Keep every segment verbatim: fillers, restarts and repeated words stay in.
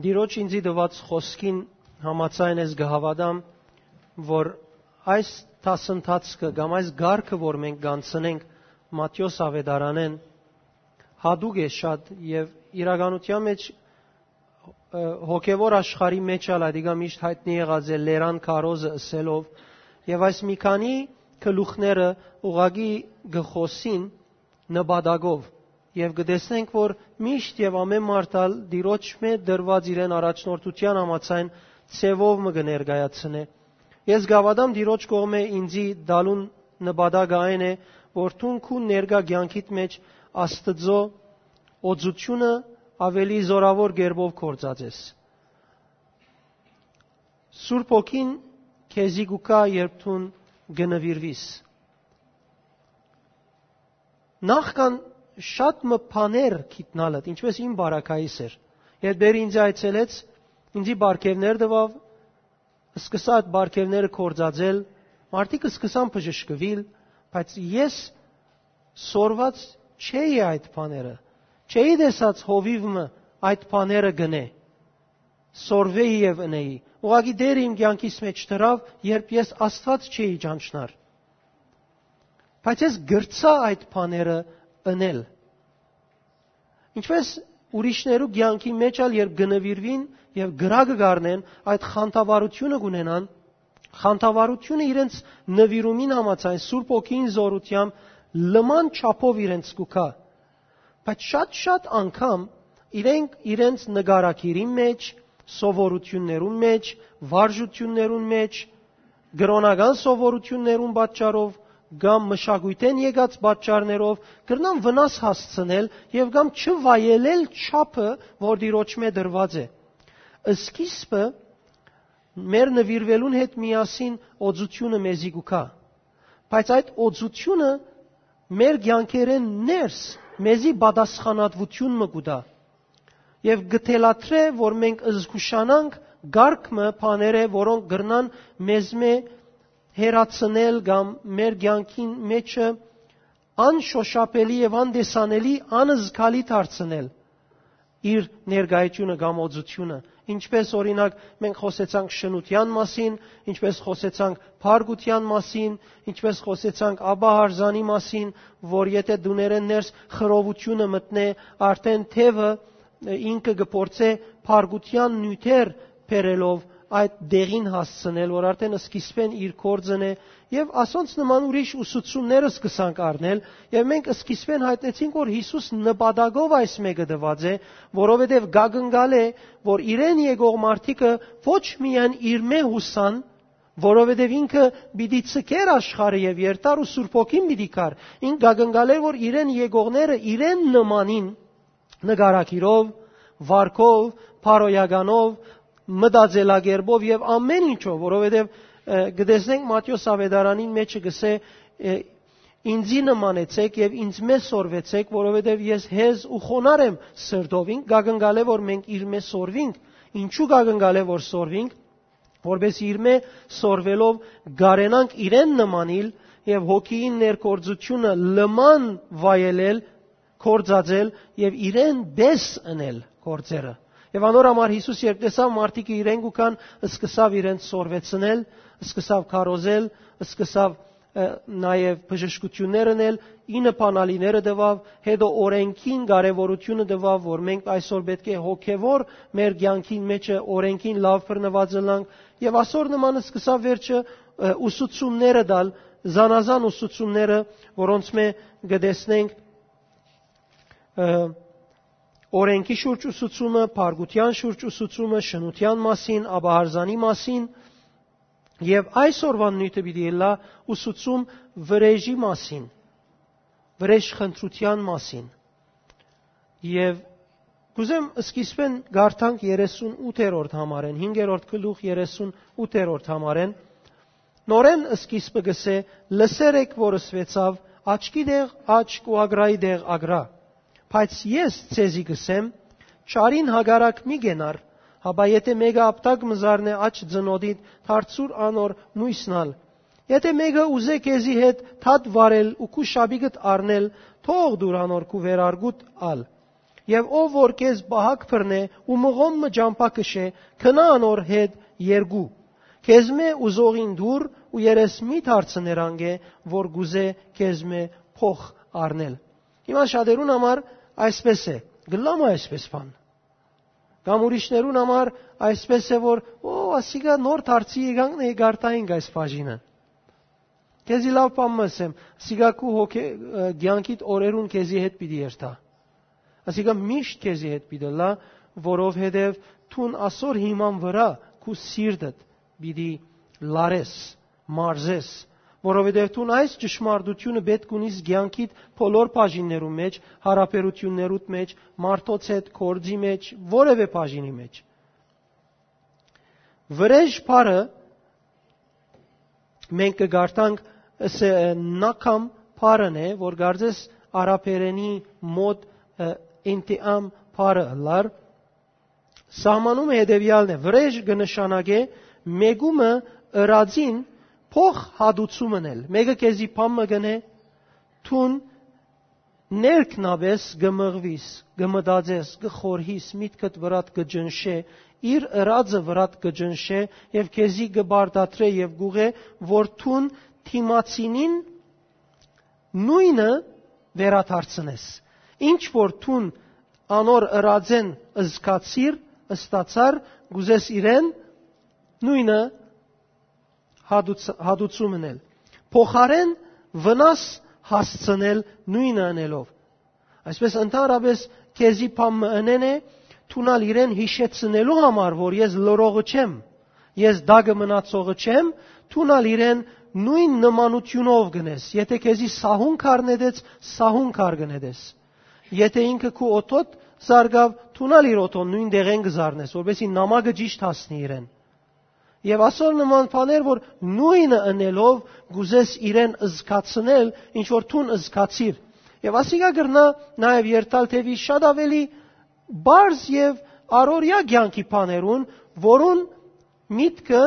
Տիրոջ ինձի տուած խօսքին համաձայն ես կը հաւատամ, որ այս դասընթացքը կամ այս կարգը, որ մենք կ'անցնենք Մատթէոս Աւետարանէն, յատուկ է շատ եւ իրականութեան մէջ, ը, հոգեւոր աշխարհի մէջ ալ ատիկա միշտ յայտնի եղած է լերան քարոզը ըսելով, եւ այս մի քանի գլուխները ուղղակի կը խօսին նպատակով, եւ կը տեսնենք, որ միշտ եւ ամէն մարդ ալ Տիրոջ մէ դրուած իրեն առաջնորդութեան համաձայն ձեւով մը կը ներկայացնէ։ Ես կ'աւատամ Տիրոջ կողմէ ինձի տալուն նպատակը այն է, որ դուն քու ներկայ կեանքիդ մէջ Աստուծոյ օծութիւնը աւելի զօրաւոր կերպով գործածես։ Սուրբ Հոգին քեզի կու գայ, երբ դուն կը նուիրուիս։ Նախքան շատ մը բաներ գիտնալդ, ինչպես իմ բարակայիս էր, երբ դեր ինձ այցելեց, ինձի պարգեւներ տուաւ, սկսա այդ պարգեւները գործածել, մարդիկ սկսան բժշկուիլ, բայց ես սորված չէի այդ բաները, չէի տեսած հովիւ մը այդ բաները գնէ, սորվէի եւ ընէի։ Ուղղակի Տերը իմ կեանքիս մէջ դրաւ, երբ ես Աստուած չէի ճանչնար։ Բայց ես գրցայ այդ բաները ընել։ Ինչպես ուրիշներու կեանքի մէջ ալ, երբ կը նուիրուին եւ կրակը կ'առնեն, այդ խանդավառութիւնը կ'ունենան, խանդավառութիւնը իրենց նուիրումին համաձայն Սուրբ Հոգին զօրութեամբ լման չափով իրենց կու գայ։ Բայց շատ-շատ անգամ իրենք իրենց նկարագիրին մէջ, սովորութիւններուն մէջ, վարժութիւններուն մէջ, կրօնական սովորութիւններուն պատճառով կամ մշակոյթէն եկած պատճառներով կրնան վնաս հասցնել եւ կամ չվայելել չափը, որ Տիրոջ մէ դրուած է։ Սկիզբը մեր նուիրուելուն հետ միասին օծութիւնը մեզի կու գայ, բայց այդ օծութիւնը մեր կեանքերէն ներս մեզի պատասխանատվութիւն մը կու տայ եւ կը թելադրէ, որ մենք զգուշանանք կարգ մը բաներէ, որոնք կրնան մեզմէ հեռացնել կամ մեր կեանքին մէջը անշոշափելի եւ անտեսանելի, անզգալի դարձնել իր ներկայությունը կամ օծութիւնը։ Ինչպես, օրինակ, մենք խօսեցանք շնութեան մասին, ինչպես խօսեցանք փառքութեան մասին, ինչպես խօսեցանք աբահարզանի մասին, որ եթե դուներէն ներս խռովութիւնը մտնէ, արդէն թեւը, ը, ինքը կը փորձէ փառքութեան նիւթեր բերելով այդ դեղին հասցնել, որ արդէն սկիզբէն իր գործն է, եւ ասոնց նման ուրիշ ուսուցումները սկսանք առնել, եւ մենք սկիզբէն յայտնեցինք, որ Յիսուս նպատակով այս մէկը տուած է, որովհետեւ կակնկալէ, որ իրեն եկող մարդիկը ոչ միայն իր մէ յուսան, որովհետեւ ինքը պիտի ցկեր աշխարհը եւ երթար ու Սուրբ Հոգին պիտի գար։ Ինք կակնկալէ, որ իրեն եկողները իրեն նմանին նկարագիրով, վարքով, բարոյականով, մտածելակերպով եւ ամէն ինչով, որովհետեւ, ը, կը տեսնենք Մատթէոս Աւետարանին մէջը կ'ըսէ, ը, «Ինձի նմանեցէք եւ ինձ մէ սորվեցէք, որովհետեւ ես հեզ ու խոնար եմ սրտով»։ Ինք կակնկալէ, որ մենք իր մէ սորվինք։ Ինչու՞ կակնկալէ, որ սորվինք, որպէս իր մէ սորվելով կարենանք իրեն նմանիլ եւ հոգիին ներգործութիւնը լման վայելել, գործածել եւ իրեն պես ընել գործերը։ Եւ անոր համար Յիսուս, երբ տեսաւ մարդիկը իրեն կու գան, սկսաւ իրենց սորվեցնել, սկսաւ քարոզել, սկսաւ, ը, նաեւ բժշկութիւններ ընել, ինը բանալիները տուաւ, հետո օրենքին կարեւորութիւնը տուաւ, որ մենք այսօր պէտք է հոգեւոր մեր կեանքին մէջը օրենքին լաւ բռնուած ըլլանք, եւ ասոր նման սկսաւ վերջը, ը, ուսուցումները տալ, զանազան ուսուցումները, որոնց մէ կը տեսնենք, ը, օրենքի շուրջ ուսուցումը, փառքութեան շուրջ ուսուցումը, շնութեան մասին, աբահարզանի մասին, եւ այսօրվան նիւթը պիտի ըլլայ ուսուցում վրէժի մասին, վրէժ խնդրութեան մասին։ Եւ կուզեմ սկիզբէն կարդանք երեսուն ութերորդ համարէն, հինգերորդ գլուխ երեսուն ութերորդ համարէն։ Նորէն սկիզբը կ'ըսէ. «Լսեր էք, որ ըսուեցաւ. աչքի դեղ աչք ու ագրայի դեղ ագրա։ Բայց ես ձեզի կ'ըսեմ, չարին հակառակ մի կենար, հապա եթե մէկը ապտակ մը զարնէ աջ ծնոտիդ, դարձուր անոր նոյսն ալ։ Եթե մէկը ուզէ քեզի հետ դատ վարել ու քու շապիկդ առնել, թող դուր անոր քու վերարկուդ ալ»։ Եւ ով որ քեզ պահակ բռնէ ու մղոն մը ճամբայ քշէ, քնա անոր հետ երկու։ Քեզմէ ուզողին տուր ու երես մի դարձ ներանք է, որ գուզէ քեզմէ փոխ առնել»։ Հիմա շատերուն համար այսպես է, գլամը այսպես բան։ Կամ ուրիշներուն համար այսպես է, որ «Օ, ասիկա նոր դարձի եկանք, նե գարտայինք այս բաժինը»։ Քեզի լաւ բան մը ասեմ, ասիկա քու հոգե, ը, կեանքիդ օրերուն քեզի հետ պիտի երթայ։ Ասիկա միշտ քեզի հետ պիտի լա, որովհետեւ դուն ասոր հիման վրա քու սիրտդ պիտի լարես, մարզես, որովհետեւ դուն այս ճշմարտությունը պէտք ունիս կեանքիդ բոլոր բաժիններուն մեջ, յարաբերութիւններուդ մեջ, մարդոց հետ, գործի մեջ, որեւէ բաժինի մեջ։ Վրեժ բառը մենք կը կարդանք, ըսե, ը, նակամ բառն է, որ կարծես արաբերենի մոտ, ը, ինտիամ բառը ըլլար։ Սահմանումը հետեւեալն է. վրեժ կը նշանակէ մեկումը ըրածին փոխ հատուցում ընել։ Մեկը քեզի բան մը կ'ընէ, դուն ներքնապէս կը մղուիս, կը մտածես, կը խորհիս, միտքդ վրադ կը ճնշէ, իր ըրածը վրադ կը ճնշէ եւ քեզի կը պարտադրէ եւ կ'ուղղէ, որ դուն դիմացինին նոյնը վերադարձնես։ Ինչ որ դուն անոր ըրածէն զգացիր, ստացար, կ'ուզես իրեն նոյնը հատուց-, հատուցում ընել։ Փոխարէն վնաս հասցնել նոյնը ընելով։ Այսպես, ընդհանրապես, քեզի բան մը ընեն է, դուն ալ իրեն յիշեցնելու համար, որ ես լռողը չեմ, ես տակը մնացողը չեմ, դուն ալ իրեն նոյն նմանութիւնով կ'ընես։ Եթէ քեզի սահուն քար նետեց, սահուն քար կը նետես։ Եթէ ինքը քու օդոդ զարկաւ, դուն ալ իր օդոն նոյն տեղէն կը զարնես, որպեսզի նամակը ճիշդ հասնի իրեն։ Եւ ասոր նման բաներ, որ նոյնը ընելով կ'ուզես իրեն զգացնել, ինչ որ դուն զգացիր։ Եւ ասիկա կրնայ նաեւ երթալ թեւի շատ աւելի պարզ եւ առօրեայ կեանքի բաներուն, որուն միտքը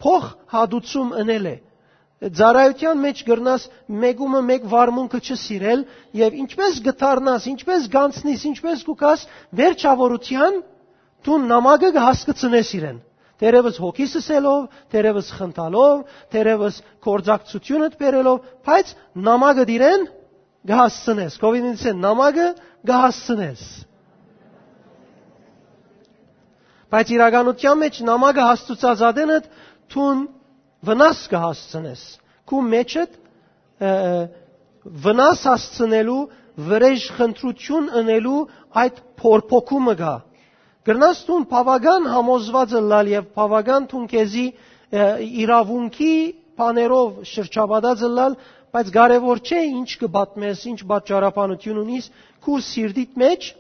փոխհատուցում ընել է։ Ծառայութեան մեջ կրնաս մեկումը մէկ վարմունքը չսիրել, եւ ինչպես կդառնաս, ինչպես կ'անցնիս, ինչպես կու գաս, վերջաւորութեան դուն նամակը կը հասկցնես իրեն։ Դերևս հոգիս ըսելով, դերևս խնդալով, դերևս գործակցությունդ բերելով, բայց նամակը իրեն կը հասցնես։ Կովինինցեն նամակը կը հասցնես։ Բայց իրականության մեջ նամակը հասցուցած ատենդ դուն վնաս կը հասցնես։ Քու մեջդ, ը, վնաս հասցնելու, վրեժ խնդրություն ընելու այդ փորփոքումը կա։ Կրնաս դուն բաւական համոզված ըլլալ եւ բաւական դուն քեզի, ը, իրաւունքի բաներով շրջապատած ըլլալ, բայց կարեւոր չէ ինչ կը պատմես, ինչ պատճառաբանություն ունիս, քու սիրտիդ մեջ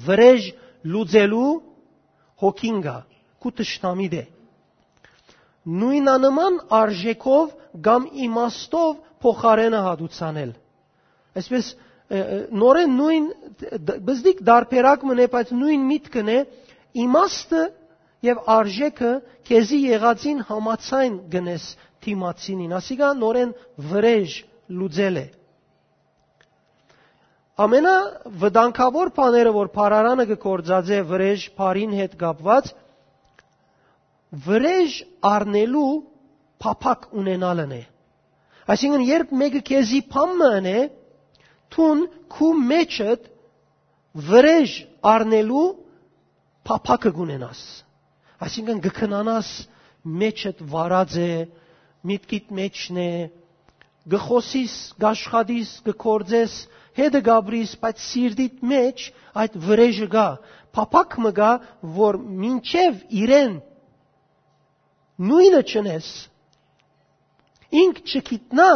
վրեժ լուծելու հոգին կա, քու թշնամիդ է։ Նոյնանման արժեքով կամ իմաստով փոխարէնը հատուցանել։ Այսպես, ը, ը, նորեն նոյն, դ-, բզդիկ դարբերակ մնե, բայց նոյն միտքն է, իմաստը եւ արժեքը քեզի եղածին համաձայն գնես դիմացինին, ասիկա նորեն վրեժ լուծել է։ Ամենավտանգաւոր բաները, որ բառարանը կը գործածէ վրեժ բառին հետ կապուած, վրեժ առնելու փափաք ունենալն է։ Այսինքն, երբ մէկը քեզի բան մը ընէ, դուն քու մեջդ վրեժ առնելու փափաքը կունենաս։ Այսինքն, կը քնանաս, մեջդ վարած է, միտքիդ մեջն է, կը խօսիս, կ'աշխատիս, կը գործես, հետը կ'ապրիս, բայց սիրտիդ մեջ այդ վրեժը կա, փափաք մը կա, որ մինչեւ իրեն նոյնը չընես, ինք չգիտնայ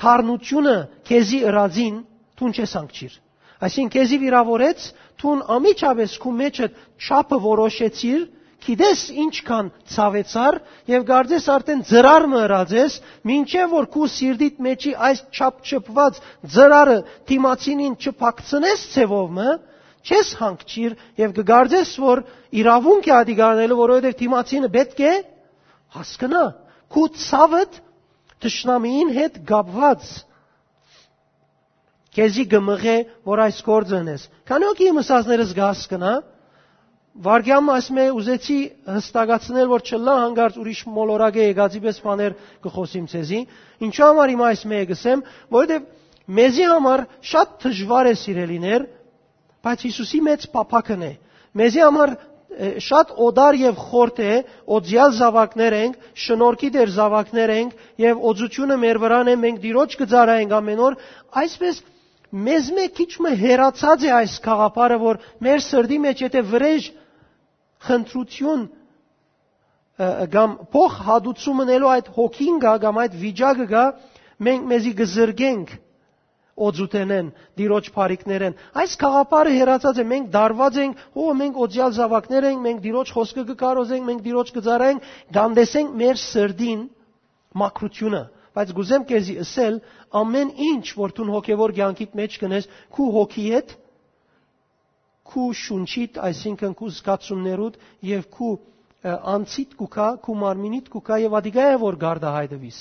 թարնությունը քեզի ըրածին, դուն չես հանգչիր։ Այսինքն, քեզի վիրավորեց, դուն անմիջապէս քու մեջդ չափը որոշեցիր, գիտես ինչքան ցաւեցար եւ կարծես արդեն ծրար մը ըրած ես, մինչեւ որ քու սիրտիդ մեջի այս չափ չփված ծրարը դիմացինին չփակցնես ձևով մը, չես հանգչիր եւ կը կարծես, որ իրաւունք է ատիկ առնելու, որովհետեւ դիմացինը պէտք է հասկնայ քու ցաւդ թշնամիին հետ կապուած։ քեզի կը մղէ որ այս գործը ընես։ Քանի՞ հոգի իմ ըսածներս կը հասկնայ։ Վայրկեան մը այս մէ ուզեցի հստակացնել որ չըլլայ հանկարծ ուրիշ մոլորակէ եկածի պէս բաներ կը խօսիմ ձեզի։ Ինչու համար հիմա այս մէ կ'ըսեմ, որովհետեւ մեզի համար շատ դժուար է, սիրելիներ, բայց Յիսուսի մեծ փափաքն է։ Մեզի համար շատ օտար եւ խորթ է, օծեալ զաւակներ ենք, շնորհքի դեր զաւակներ ենք եւ օծութիւնը մեր վրան է, մենք Տիրոջ կը ծառայենք ամէն օր։ Այսպէս մեզ մէ քիչ մը հեռացած է այս գաղափարը, որ մեր սրտի մէջ եթե վրէժ խնդրութիւն, ը, կամ փոխ հատուցում ընելու այդ հոգին գայ կամ այդ վիճակը գայ, մենք մեզի կը զրկենք օծութենէն, Տիրոջ բարիքներէն։ Այս գաղափարը հեռացած է, մենք դարված ենք, հո, մենք օծեալ զաւակներ ենք, մենք Տիրոջ խօսքը կը կարոզենք, մենք Տիրոջ կը ծառայենք, կ'անտեսենք մեր սրտին մաքրութիւնը։ Բայց կ'ուզեմ քեզի ըսել, ամէն ինչ որ դուն հոգեվոր կեանքիդ մէջ կ'ընես, քու հոգիդ, քու շունչիդ, այսինքն քու զգացումներուդ եւ քու, ը, անձիդ կու գայ, քու մարմինիդ կու գայ եւ ադիկա է որ գարտահայտուիս։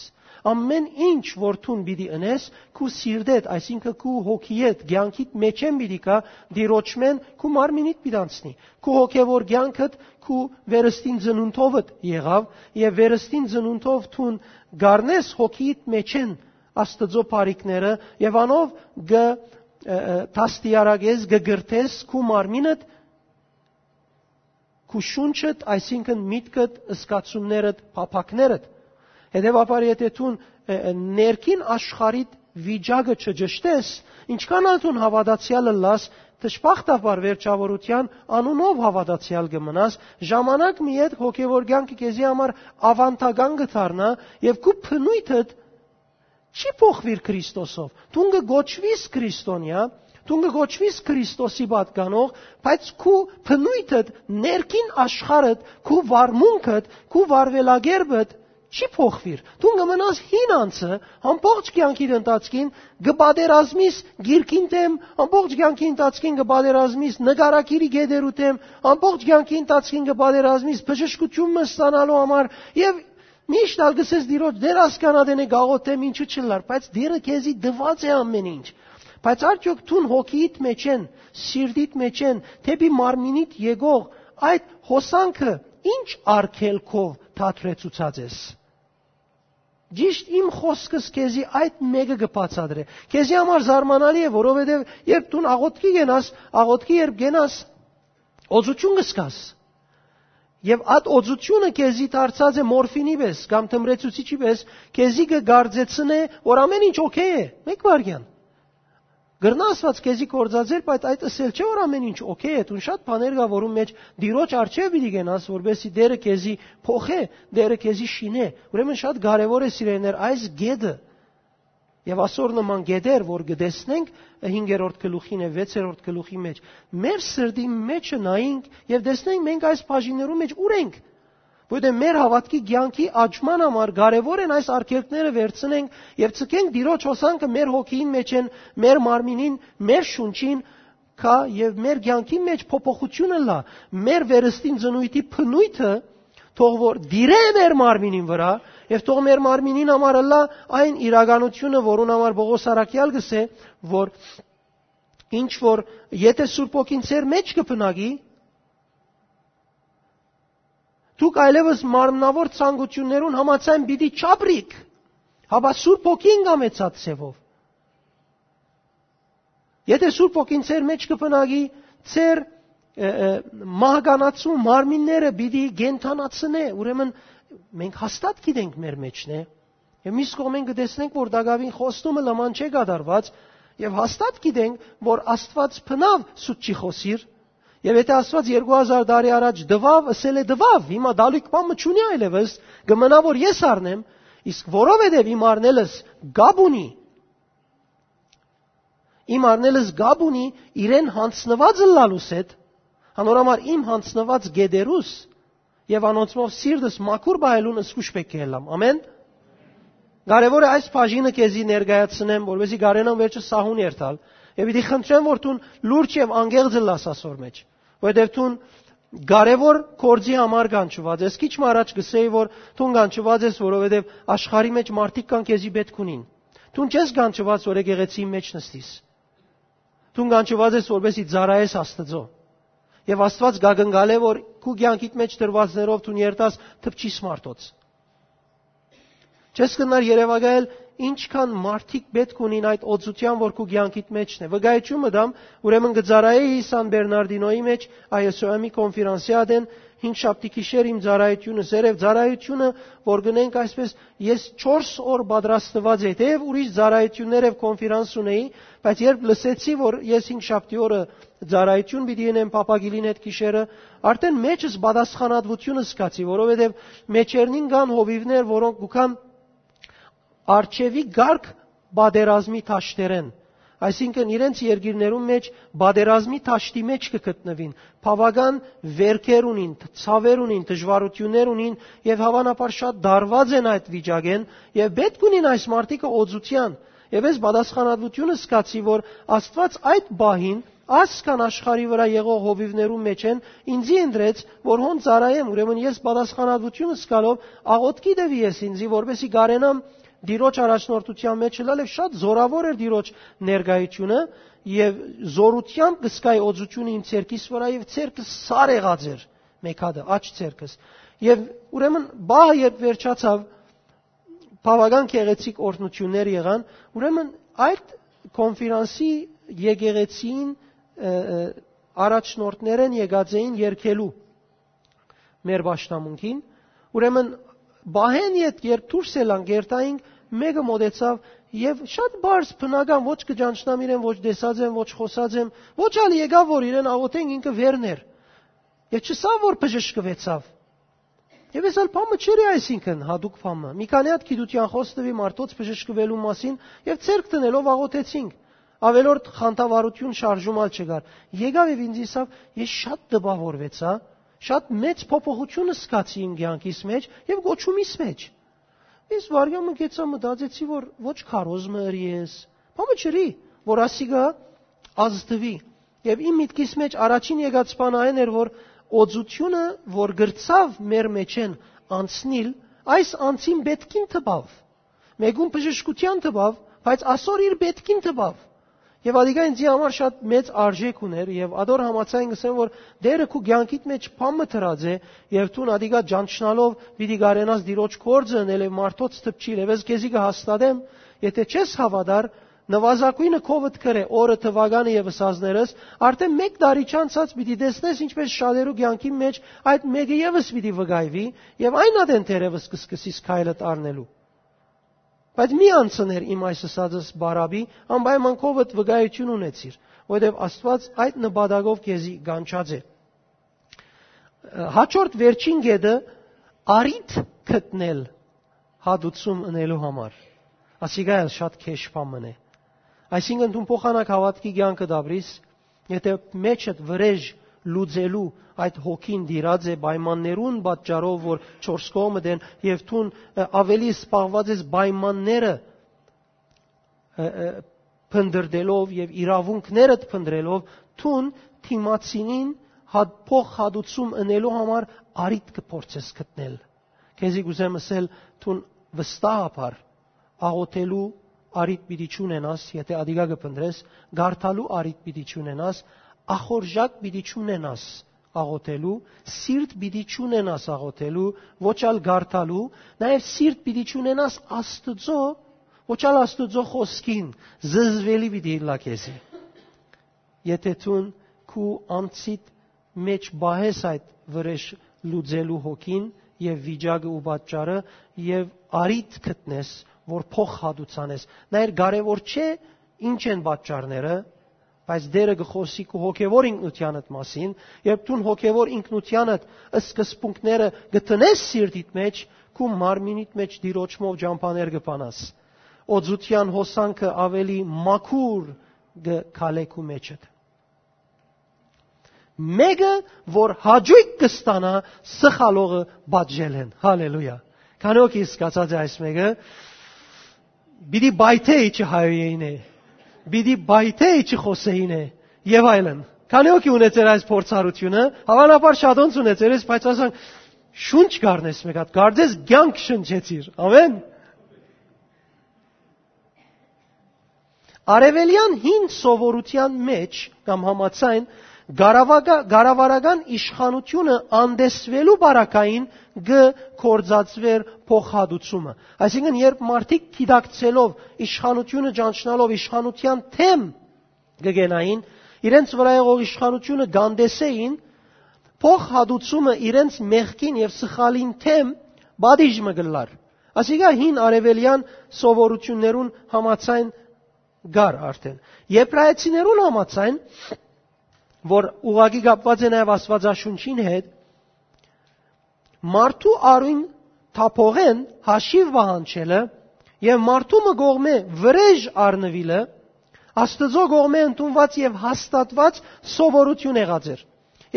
Ամէն ինչ որ դուն պիտի ընես, քու սիրտեդ, այսինքն քու հոգիեդ, կեանքիդ մէջէն պիտի գայ, Տիրոջմէն քու մարմինիդ պիտի անցնի։ Քու հոգեվոր կեանքդ քու վերստին ծնունդովդ եղաւ եւ վերստին ծնունդով դուն գառնես հոգիիդ մէջէն Աստուծոյ բարիքները եւ անով կը, ը, ը, դաստիարակես, կը կրթես քու մարմինդ, քու շունչդ, այսինքն միտքդ, զգացումներդ, փափաքներդ։ Հետեւաբար, եթե դուն, ը, ը, ներքին աշխարհիդ վիճակը չճշտես, ինչքան ալ դուն հաւատացեալ ըլլաս, դժբախտաբար վերջաւորութեան անունով հաւատացեալ կը մնաս, ժամանակ մը յետ հոգեվոր կեանքը քեզի համար աւանդական կը դառնայ եւ քու բնույթդ չի փոխուիր Քրիստոսով։ Դուն կը կոչուիս քրիստոնեայ, դուն կը կոչուիս Քրիստոսի պատկանող, բայց քու բնույթդ, ներքին աշխարհդ, քու վարմունքդ, քու վարուելակերպդ չի փոխուիր։ Դուն կը մնաս հին անձը, ամբողջ կեանքիդ ընթացքին կը պատերազմիս գիրքին դեմ, ամբողջ կեանքի ընթացքին կը պատերազմիս նկարագիրի գետերու դեմ, ամբողջ կեանքի ընթացքին կը պատերազմիս բժշկութիւն մը ստանալու համար եւ միշտ ալ կ'ըսես Տիրոջ, Տէր, ասկան ատենէ կ'աղօթեմ, ինչու՞ չըլլար, բայց Տէրը քեզի տուած է ամէն ինչ։ Բայց արդյոք դուն հոգիիդ մէջէն, սիրտիդ մէջէն, դէպի մարմինիդ եկող այդ հոսանքը ի՞նչ արգելքով դադրեցուցած ես։ Ճիշտ իմ խօսքս քեզի այդ մէկը կը բացատրէ։ Քեզի համար զարմանալի է, որովհետեւ երբ դուն աղօթքի կենաս, աղօթքի երբ կենաս, օծութիւն կը զգաս։ Եւ այդ օծութիւնը քեզի դարձած է մորֆինի պէս կամ թմրեցուցիչի պէս, քեզի կը կարծեցնէ, որ ամէն ինչ օքեյ է։ Մէկ վայրկեան։ Կրնայ Աստուած քեզի գործածել, բայց այդ ըսել չէ, որ ամէն ինչ օքեյ է։ Դուն շատ բաներ կայ, որուն մէջ Տիրոջ առջեւ պիտի կենաս, որպեսզի Տէրը քեզի փոխէ, Տէրը քեզի շինէ։ Ուրեմն շատ կարեւոր է, սիրելիներ, այս կետը։ Եւ ասոր նման կետեր, որ կը տեսնենք հինգերորդ գլուխին եւ վեցերորդ գլուխի մէջ, մեր սրտի մէջը նայենք եւ տեսնենք մենք այս բաժիններու մէջ ուր ենք։ Որտեղ մեր հաւատքի կեանքի աճման համար կարեւոր են այս արգելքները վերցնենք եւ ցկենք Տիրոջ հոսանքը մեր հոգիին մէջէն, մեր մարմինին, մեր շունչին, կայ եւ մեր կեանքի մէջ փոփոխութիւն ըլլայ, մեր վերստին ծնունդի բնույթը թող որ տիրէ մեր մարմինին վրայ եւ թող մեր մարմինին համար ըլլայ այն իրականությունը, որուն համար Պողոս առաքեալ կ'ըսէ, որ ինչ որ եթե Սուրբ Հոգին ձեր մէջ կը բնակի, դուք այլեւս մարմնաւոր ցանկութիւններուն համաձայն պիտի չապրիք, հապա Սուրբ Հոգին կամեցած ձեւով։ Եթե Սուրբ Հոգին ձեր մէջ կը բնակի, ձեր, ը, ը, մահկանացու մարմինները պիտի կենդանացնէ, ուրեմն մենք հաստատ գիտենք մեր մէջն է։ Եւ միս կողմէն կը տեսնենք, որ տակաւին խոստումը լման չէ կատարված, եւ հաստատ գիտենք, որ Աստուած բնաւ սուտ չի խօսիր, եւ եթե Աստուած երկու հազար տարի առաջ տուաւ, ըսել է տուաւ, հիմա դալիք բան մը չունի այլեւս, կը մնայ որ ես առնեմ, իսկ որովհետեւ իմ առնելս կապ ունի, իմ առնելս կապ ունի իրեն յանձնված ըլլալուս հետ, անոր համար իմ յանձնված գետերուս եւ անոնցմով սիրտս մաքուր պահելուն զգուշ պէտք է ըլլամ։ Ամեն։ Կարեւոր է այս բաժինը քեզի ներկայացնեմ, որպեսզի կարենամ վերջը սահուն երթալ, եւ պիտի խնդրեմ, որ դուն լուրջ եւ անկեղծ ըլլաս ասոր մէջ, որովհետեւ դուն կարեւոր գործի համար կանչուած ես։ Քիչ մը առաջ կ'ըսէի, որ դուն կանչուած ես, որովհետեւ աշխարհի մէջ մարդիկ կան քեզի պէտք ունին։ Դուն չես կանչուած, որ եկեղեցիի մէջ նստիս։ Դուն կանչուած ես որպեսզի ծառայես Աստծոյ։ Եւ Աստուած կակնկալէ, որ քու կեանքիդ մէջ դրուածներով դուն երթաս դպչիս մարդոց։ Չես կրնար երեւակայել ինչքան մարդիկ պէտք ունին այդ օծութեան, որ քու կեանքիդ մէջն է։ Վկայութիւն մը տամ, ուրեմն կը ծառայէի Սան Բերնարդինոյի մէջ, Ա Ս Օ Մ-ի կոնֆերանսի ատեն, հինգշաբթի գիշեր իմ ծառայութիւնս էր, եւ ծառայութիւնը, որ գնենք այսպես, ես չորս օր պատրաստուած էի, թէեւ ուրիշ ծառայութիւններ եւ կոնֆերանս ունեի, բայց երբ լսեցի, որ ես հինգշաբթի օրը ծառայութիւն պիտի ընեմ Փափագիլին հետ գիշերը, արդէն մէջս պատասխանատուութիւնը զգացի, որովհետեւ մէջերնին կան հովիւներ, որոնք կու գան արջեւի կարգ պատերազմի դաշտերէն, այսինքն իրենց երկիրներուն մէջ պատերազմի դաշտի մէջ կը գտնուին, բաւական վերքեր ունին, ցաւեր ունին, դժուարութիւններ ունին եւ հաւանաբար շատ դարված են այդ վիճակէն եւ պէտք ունին այս մարդիկը օծութեան։ Եւ ես պատասխանատուութիւնը զգացի, որ Աստուած այդ պահին, այսքան աշխարհի վրայ եղող հովիւներուն մէջէն ինձի ընտրեց, որ հոն ծառայեմ, ուրեմն ես պատասխանատուութիւնս զգալով աղօթքի տուի ես ինձի, որպեսզի կարենամ Տիրոջ առաջնորդութեան մէջ ըլլալ, եւ շատ զօրաւոր էր Տիրոջ ներկայութիւնը, եւ զօրութեամբ կը զգայի օծութիւնը իմ ձեռքիս վրայ, եւ ձեռքը սար եղած էր մէկ հատը, աջ ձեռքս։ Եւ ուրեմն պահը երբ վերջացաւ, բաւական գեղեցիկ օրհնութիւններ եղան, ուրեմն այդ կոնֆերանսի եկեղեցին, ը, ը, առաջնորդներէն եկած էին երկելու մեր պաշտամունքին, ուրեմն պահէն ետք երբ դուրս ելանք, երթայինք, մէկը մօտեցաւ եւ շատ բարձ բնական, ոչ կը ճանչնամ իրեն, ոչ տեսած եմ, ոչ խօսած եմ, ոչ ալ եկաւ, որ իրեն աղօթենք, ինքը վերն էր։ Եւ չսա, որ բժշկուեցաւ։ Եւ ես ալ բան մը չերի, այսինքն, յատուկ բան մը։ Մի քանի հատ գիտութեան խօս տուի մարդոց բժշկուելու մասին եւ ձեռք դնելով աղօթեցինք։ Ավելորդ խանդավառութիւն շարժում ալ չկար։ Եկաւ եւ ինձ ըսաւ, ես շատ տպաւորուեցայ, շատ մեծ փոփոխութիւն զգացի իմ կեանքիս մէջ եւ կոչումիս մէջ։ Ես վարյամ մը գեցայ, մտածեցի, որ ոչ քարոզ մը ըրի ես, բան մը չըրի, որ ասիկա ազդուի։ Եւ իմ միտքիս մէջ առաջին եկած բան այն էր, որ օծութիւնը, որ գրցաւ մեր մէջէն անցնիլ, այս անձին պէտքին տպաւ, մէկուն բժշկութեան տպաւ, բայց ասոր իր պէտքին տպաւ։ Եւ ատիկա ինձի համար շատ մեծ արժէք ունէր, եւ ատոր համաձայն կ'ըսեմ, որ Տէրը քու կեանքիդ մէջ բան մը դրած է, եւ դուն ատիկա ճանչնալով պիտի կարենաս Տիրոջ գործը ընել եւ մարդոց դպչիլ, եւ ես քեզի կը հաստատեմ, եթէ չես հաւատար, նուազագոյնը քովդ գրէ օրը, թուականը եւ ըսածներս, արդէն մէկ տարի չանցած պիտի տեսնես, ինչպէս շատերու կեանքին մէջ այդ մէկը եւս պիտի վկայուի, եւ այն ատեն թերեւս կը սկսիս քայլդ առնելու։ Բայց մի անցներ իմ այս ըսածս բարապի, անպայման քովդ վկայութիւն ունեցիր, որովհետեւ Աստուած այդ նպատակով քեզի կանչած է։ Հաջորդ, վերջին կետը՝ առիթ գտնել հատուցում ընելու համար։ Ասիկա ալ շատ քեշ բան մըն է։ Այսինքն, դուն փոխանակ հաւատքի կեանքը դաբրիս, եթէ մեջդ վրէժ լուծելու այդ հոգին տիրած է պայմաններուն պատճառով, որ չորս կողմդ են, եւ դուն, ը, ավելի սպառված ես պայմանները, ը, ը, փնտրելով եւ իրաւունքներդ փնտրելով, դուն դիմացինին հատ-, փոխհատուցում ընելու համար առիթ կը փորձես գտնել։ Քեզի կ'ուզեմ ըսել, դուն վստահաբար աղօթելու առիթ պիտի չունենաս, եթէ ատիկա կը փնտրես, կարդալու առիթ պիտի չունենաս, ախորժակ պիտի չունենաս աղօթելու, սիրտ պիտի չունենաս աղօթելու, ոչ ալ կարդալու, նաեւ սիրտ պիտի չունենաս Աստուծոյ, ոչ ալ Աստուծոյ խօսքին, զզվելի պիտի ըլլայ քեզի։ Եթէ դուն քու անձիդ մէջ պահես այդ վրէժ լուծելու հոգին եւ վիճակը ու պատճառը, եւ առիթ գտնես, որ փոխհատուցանես։ Նայր, կարեւոր չէ ինչ են պատճառները, բայց Տէրը կը խօսի քու հոգեվոր ինքնութեանդ մասին, երբ դուն հոգեվոր ինքնութեանդ սկզբունքները կը տնես սիրտիդ մէջ, քու մարմինիդ մէջ Տիրոջմով ճամբաներ կը բանաս։ Օծութեան հոսանքը ավելի մաքուր կը քալէ քու մէջդ։ Մէկը, որ հաճոյք կը ստանայ, սխալողը պատժելէն։ Հալելույա։ Քանի՞ հոգի սկացած է այս մէկը։ Պիտի պայթէ իջը հայոյեին է, պիտի պայթէ իջը խօսեին է, եւ այլն։ Քանի՞ հոգի ունեցեր այս փորձառութիւնը, հաւանաբար շատոնց ունեցեր ես, բայց ասանք, շունչ կառնես մէկ հատ, կարծես կեանք շնչեցիր։ Ամեն։ Արեւելեան հին սովորութեան մէջ կամ համաձայն, կառավագա-, կառավարական իշխանութիւնը անտեսուելու պարագային կը կործածուէր փոխհատուցումը։ Այսինքն, երբ մարդիկ գիտակցելով, իշխանութիւնը ճանչնալով, իշխանութեան դէմ կը կենային, իրենց վրայ եղող իշխանութիւնը կանտեսէին, փոխհատուցումը իրենց մեղքին եւ սխալին դէմ պատիժ մը կ'ըլլար։ Ասիկա հին արեւելեան սովորութիւններուն համաձայն կար արդեն։ Եբրայեցիներուն համաձայն, որ ուղղակի կապուած է նաեւ Աստուածաշունչին հետ, մարդու արիւն թափողէն հաշիւ պահանջելը եւ մարդու մը կողմէ վրէժ առնուիլը Աստուծոյ կողմէ ընդունուած եւ հաստատուած սովորութիւն եղած էր։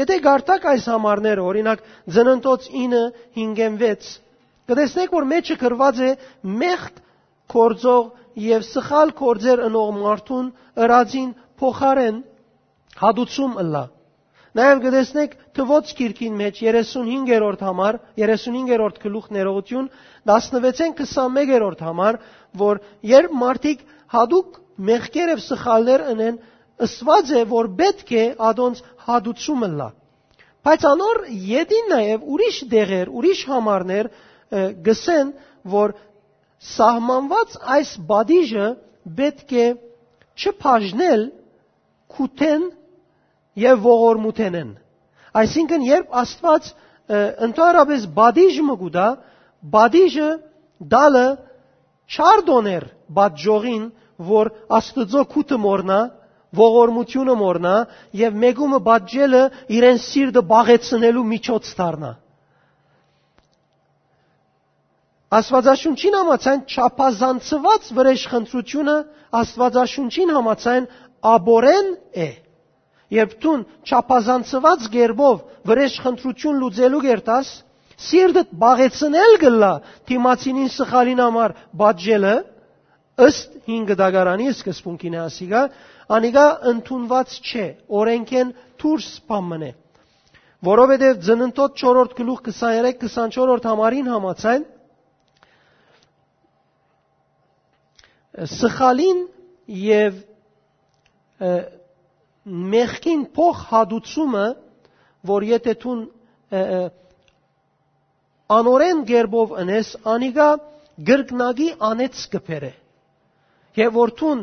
Եթէ կարդաք այս համարները, օրինակ, Ծննդոց ինը, հինգ եւ վեց, կը տեսնէք, որ մէջը գրուած է մեղք գործող եւ սխալ գործեր ընող մարդուն ըրածին փոխարէն հատուցում ըլլայ։ Նաեւ կը տեսնէք Թուոց գիրքին մէջ երեսունհինգերորդ համար, երեսունհինգերորդ գլուխ ներողություն, տասնվեցէն քսանմեկերորդ համար, որ երբ մարդիկ հատուկ մեղքեր եւ սխալներ ընեն, ըսուած է, որ պէտք է ատոնց հատուցում ըլլայ։ Բայց անոր ետին նաեւ ուրիշ դեղեր, ուրիշ համարներ, ը, գսեն, որ սահմանուած այս պատիժը պէտք է չբաժնել քութեն եւ ողորմութենէն։ Այսինքն, երբ Աստուած, ը, ընդհանրապես պատիժ մը կու տայ, պատիժը տալը չար տօներ պատժողին, որ Աստուծոյ քութը մոռնայ, ողորմութիւնը մոռնայ եւ մէկումը պատժելը իրեն սիրտը պաղեցնելու միջոց դառնայ։ Աստուածաշունչին համաձայն չափազանցուած վրէժ խնդրութիւնը Աստուածաշունչին համաձայն աբորեն է։ Երբ դուն չափազանցուած կերպով վրէժ խնդրութիւն լուծելու կերտաս, սիրտդ պաղեցնել կ'ըլլայ դիմացինին սխալին համար պատժելը, ըստ հին կտակարանի սկզբունքին է ասիկա, անիկա ընդունուած չէ, օրենքէն դուրս բան մըն է։ Որովհետեւ Ծննդոց չորրորդ գլուխ քսաներեք քսանչորսերորդ համարին համաձայն, սխալին եւ, ը, մեղքին փոխ հատուցումը, որ եթէ դուն, ը, ը, անօրէն կերպով ընես, անիկա կրկնակի անեց կը բերէ։ Եւ որ դուն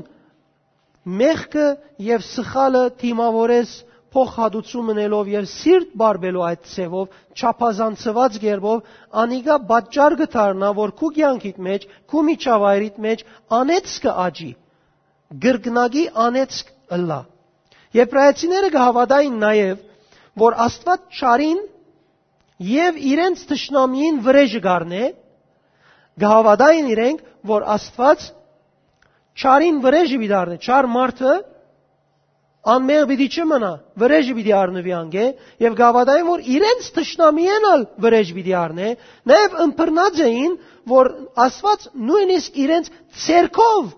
մեղքը եւ սխալը դիմաւորես փոխհատուցում ընելով եւ սիրտ բարբելու այդ ձևով, չափազանցուած կերպով, անիկա պատճառ կը դառնայ, որ քու կեանքիդ մէջ, քու միջավայրիդ մէջ անեծքը աճի, կրկնակի անեծք ըլլայ։ Եբրայեցիները կը հաւատային նաեւ, որ Աստուած չարին եւ իրենց թշնամիին վրէժը կ'առնէ, կը հաւատային իրենք, որ Աստուած չարին վրէժը պիտի առնէ, չար մարդը անմեղ պիտի չմնայ, վրէժը պիտի առնուի անկէ, եւ կը հաւատային, որ իրենց թշնամիէն ալ վրէժ պիտի առնէ, նաեւ ըմբռնած էին, որ Աստուած նոյնիսկ իրենց ձեռքով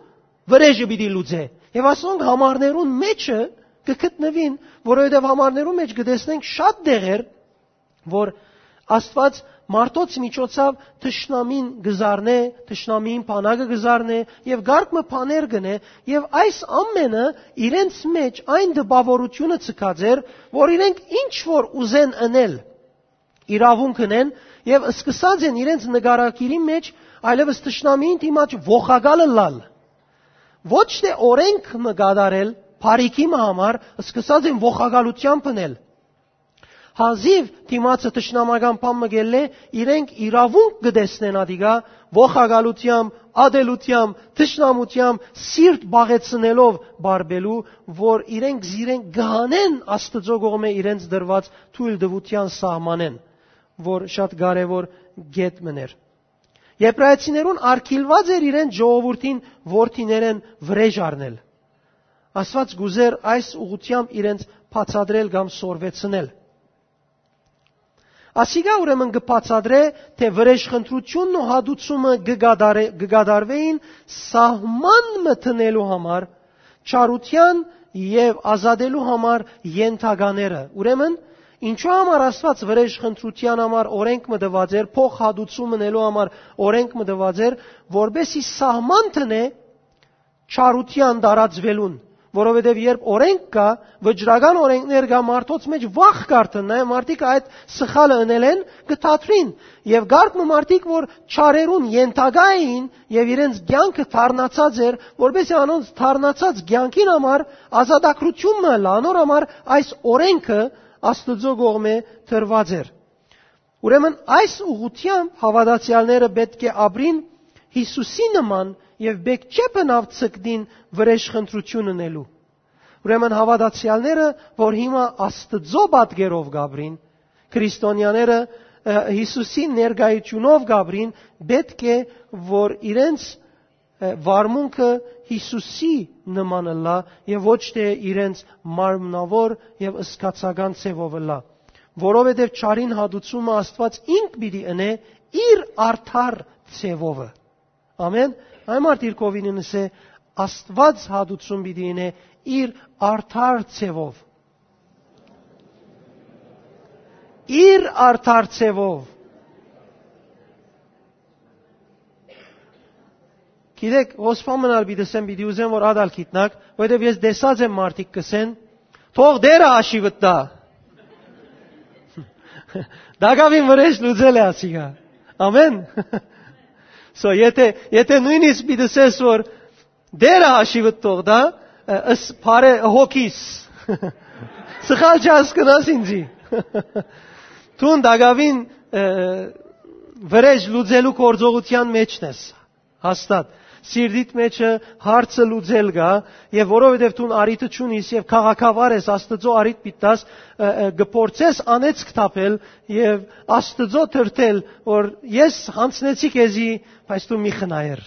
վրէժը պիտի լուծէ։ Եւ ասոնք համարներուն մէջը կը գտնուին, որովհետեւ համարներուն մէջ կը տեսնենք շատ դեղեր, որ Աստուած մարդոց միջոցով թշնամին կը զարնէ, թշնամիին բանակը կը զարնէ եւ կարգ մը բաներ կ'ընէ, եւ այս ամենը իրենց մէջ այն տպաւորութիւնը ձգած էր, որ իրենք ինչ որ ուզեն ընել, իրաւունք ընեն, եւ սկսած են իրենց նկարագիրի մէջ այլեւս թշնամիին դիմաց ողակալ ըլլալ։ Ոչ թէ օրենք մը կատարել, բարիքի մը համար, սկսած են ողակալութեամբ ընել։ Հազիւ դիմացը թշնամական բան մը կ'ելլէ, իրենք իրաւունք կը տեսնեն ադիկա ողակալութեամբ, ատելութեամբ, թշնամութեամբ, սիրտ պաղեցնելով բարբելու, որ իրենք զիրենք կը հանեն Աստուծոյ կողմէ իրենց տրուած թոյլտուութեան սահմանէն, որ շատ կարեւոր կետ մըն էր։ Եբրայեցիներուն արգիլուած էր իրենց ժողովուրդին որդիներէն վրէժ առնել։ Աստուած կ'ուզէր այս ուղղութեամբ իրենց բացատրել կամ սորվեցնել։ Ասիկա ուրեմն կը բացատրէ, թէ վրէժխնդրութիւնն ու հատուցումը կը կատարե-, կը կատարուէին սահման մը դնելու համար, չարութեան եւ ազատելու համար ենթակաները։ Ուրեմն, ինչու համար Աստուած վրէժխնդրութեան համար օրենք մը տուած էր, փոխհատուցում ընելու համար օրենք մը տուած էր, որպեսզի սահման դնէ չարութեան տարածուելուն, որովհետեւ երբ օրէնք կայ, վճռական օրէնքներ կայ, մարդոց մէջ վախ կ'արթնայ, մարդիկ այդ սխալը ընելէն կը դադրին։ Եւ կարգ մը մարդիկ, որ չարերուն ենթակայ էին եւ իրենց կեանքը դառնացած էր, որպեսզի անոնց դառնացած կեանքին համար ազատագրություն մը ըլլայ, անոր համար այս օրէնքը Աստուծոյ կողմէ տրուած էր։ Ուրեմն այս ուղղութեամբ հաւատացեալները պէտք է ապրին Յիսուսի նման եւ պէտք չէ բնաւ ձգտին վրէժ խնդրութիւն ընելու։ Ուրեմն հաւատացեալները, որ հիմա Աստուծոյ պատկերով կ'ապրին, քրիստոնեաները, ը, Յիսուսի ներկայութիւնով կ'ապրին, պէտք է որ իրենց, ը, վարմունքը Յիսուսի նման ըլլայ եւ ոչ թէ իրենց մարմնաւոր եւ զգացական ձեւով ըլլայ, որովհետեւ չարին հատուցումը Աստուած ինք պիտի ընէ իր արդար ձեւովը։ Ամեն։ Այն մարդ իր կողմէն ըսէ, Աստուած հատուցում պիտի ընէ իր արդար ձեւով։ Իր արդար ձեւով։ Գիտեք, հոս բան մնալ պիտի ասեմ, պիտի ուզեմ, որ ատալ գիտնաք, որովհետեւ ես տեսած եմ մարդիկ կ'ըսեն, «Թող Տէրը հաշիվդ տայ»։ Տակաւին վրէժ լուծել է ասիկա։ Ամեն։ So, եթե, եթե նոյնիսկ պիտի ասես, որ «Տէրը հաշիվդ թող տայ», ը, ըս բարե հոգիս, սխալ չհասկնաս ինձի։ Դուն տակաւին, ը, վրէժ լուծելու գործողութեան մէջն ես, հաստատ։ Սիրտիդ մէջը հարցը լուծել կայ, եւ որովհետեւ դուն առիթը չունիս եւ քաղաքավար ես, Աստուծոյ առիթ պիտի տաս, ը, ը, կը փորձես անեծք թափել եւ Աստուծոյ թրթել, որ ես յանձնեցի քեզի, բայց դու մի խնայեր։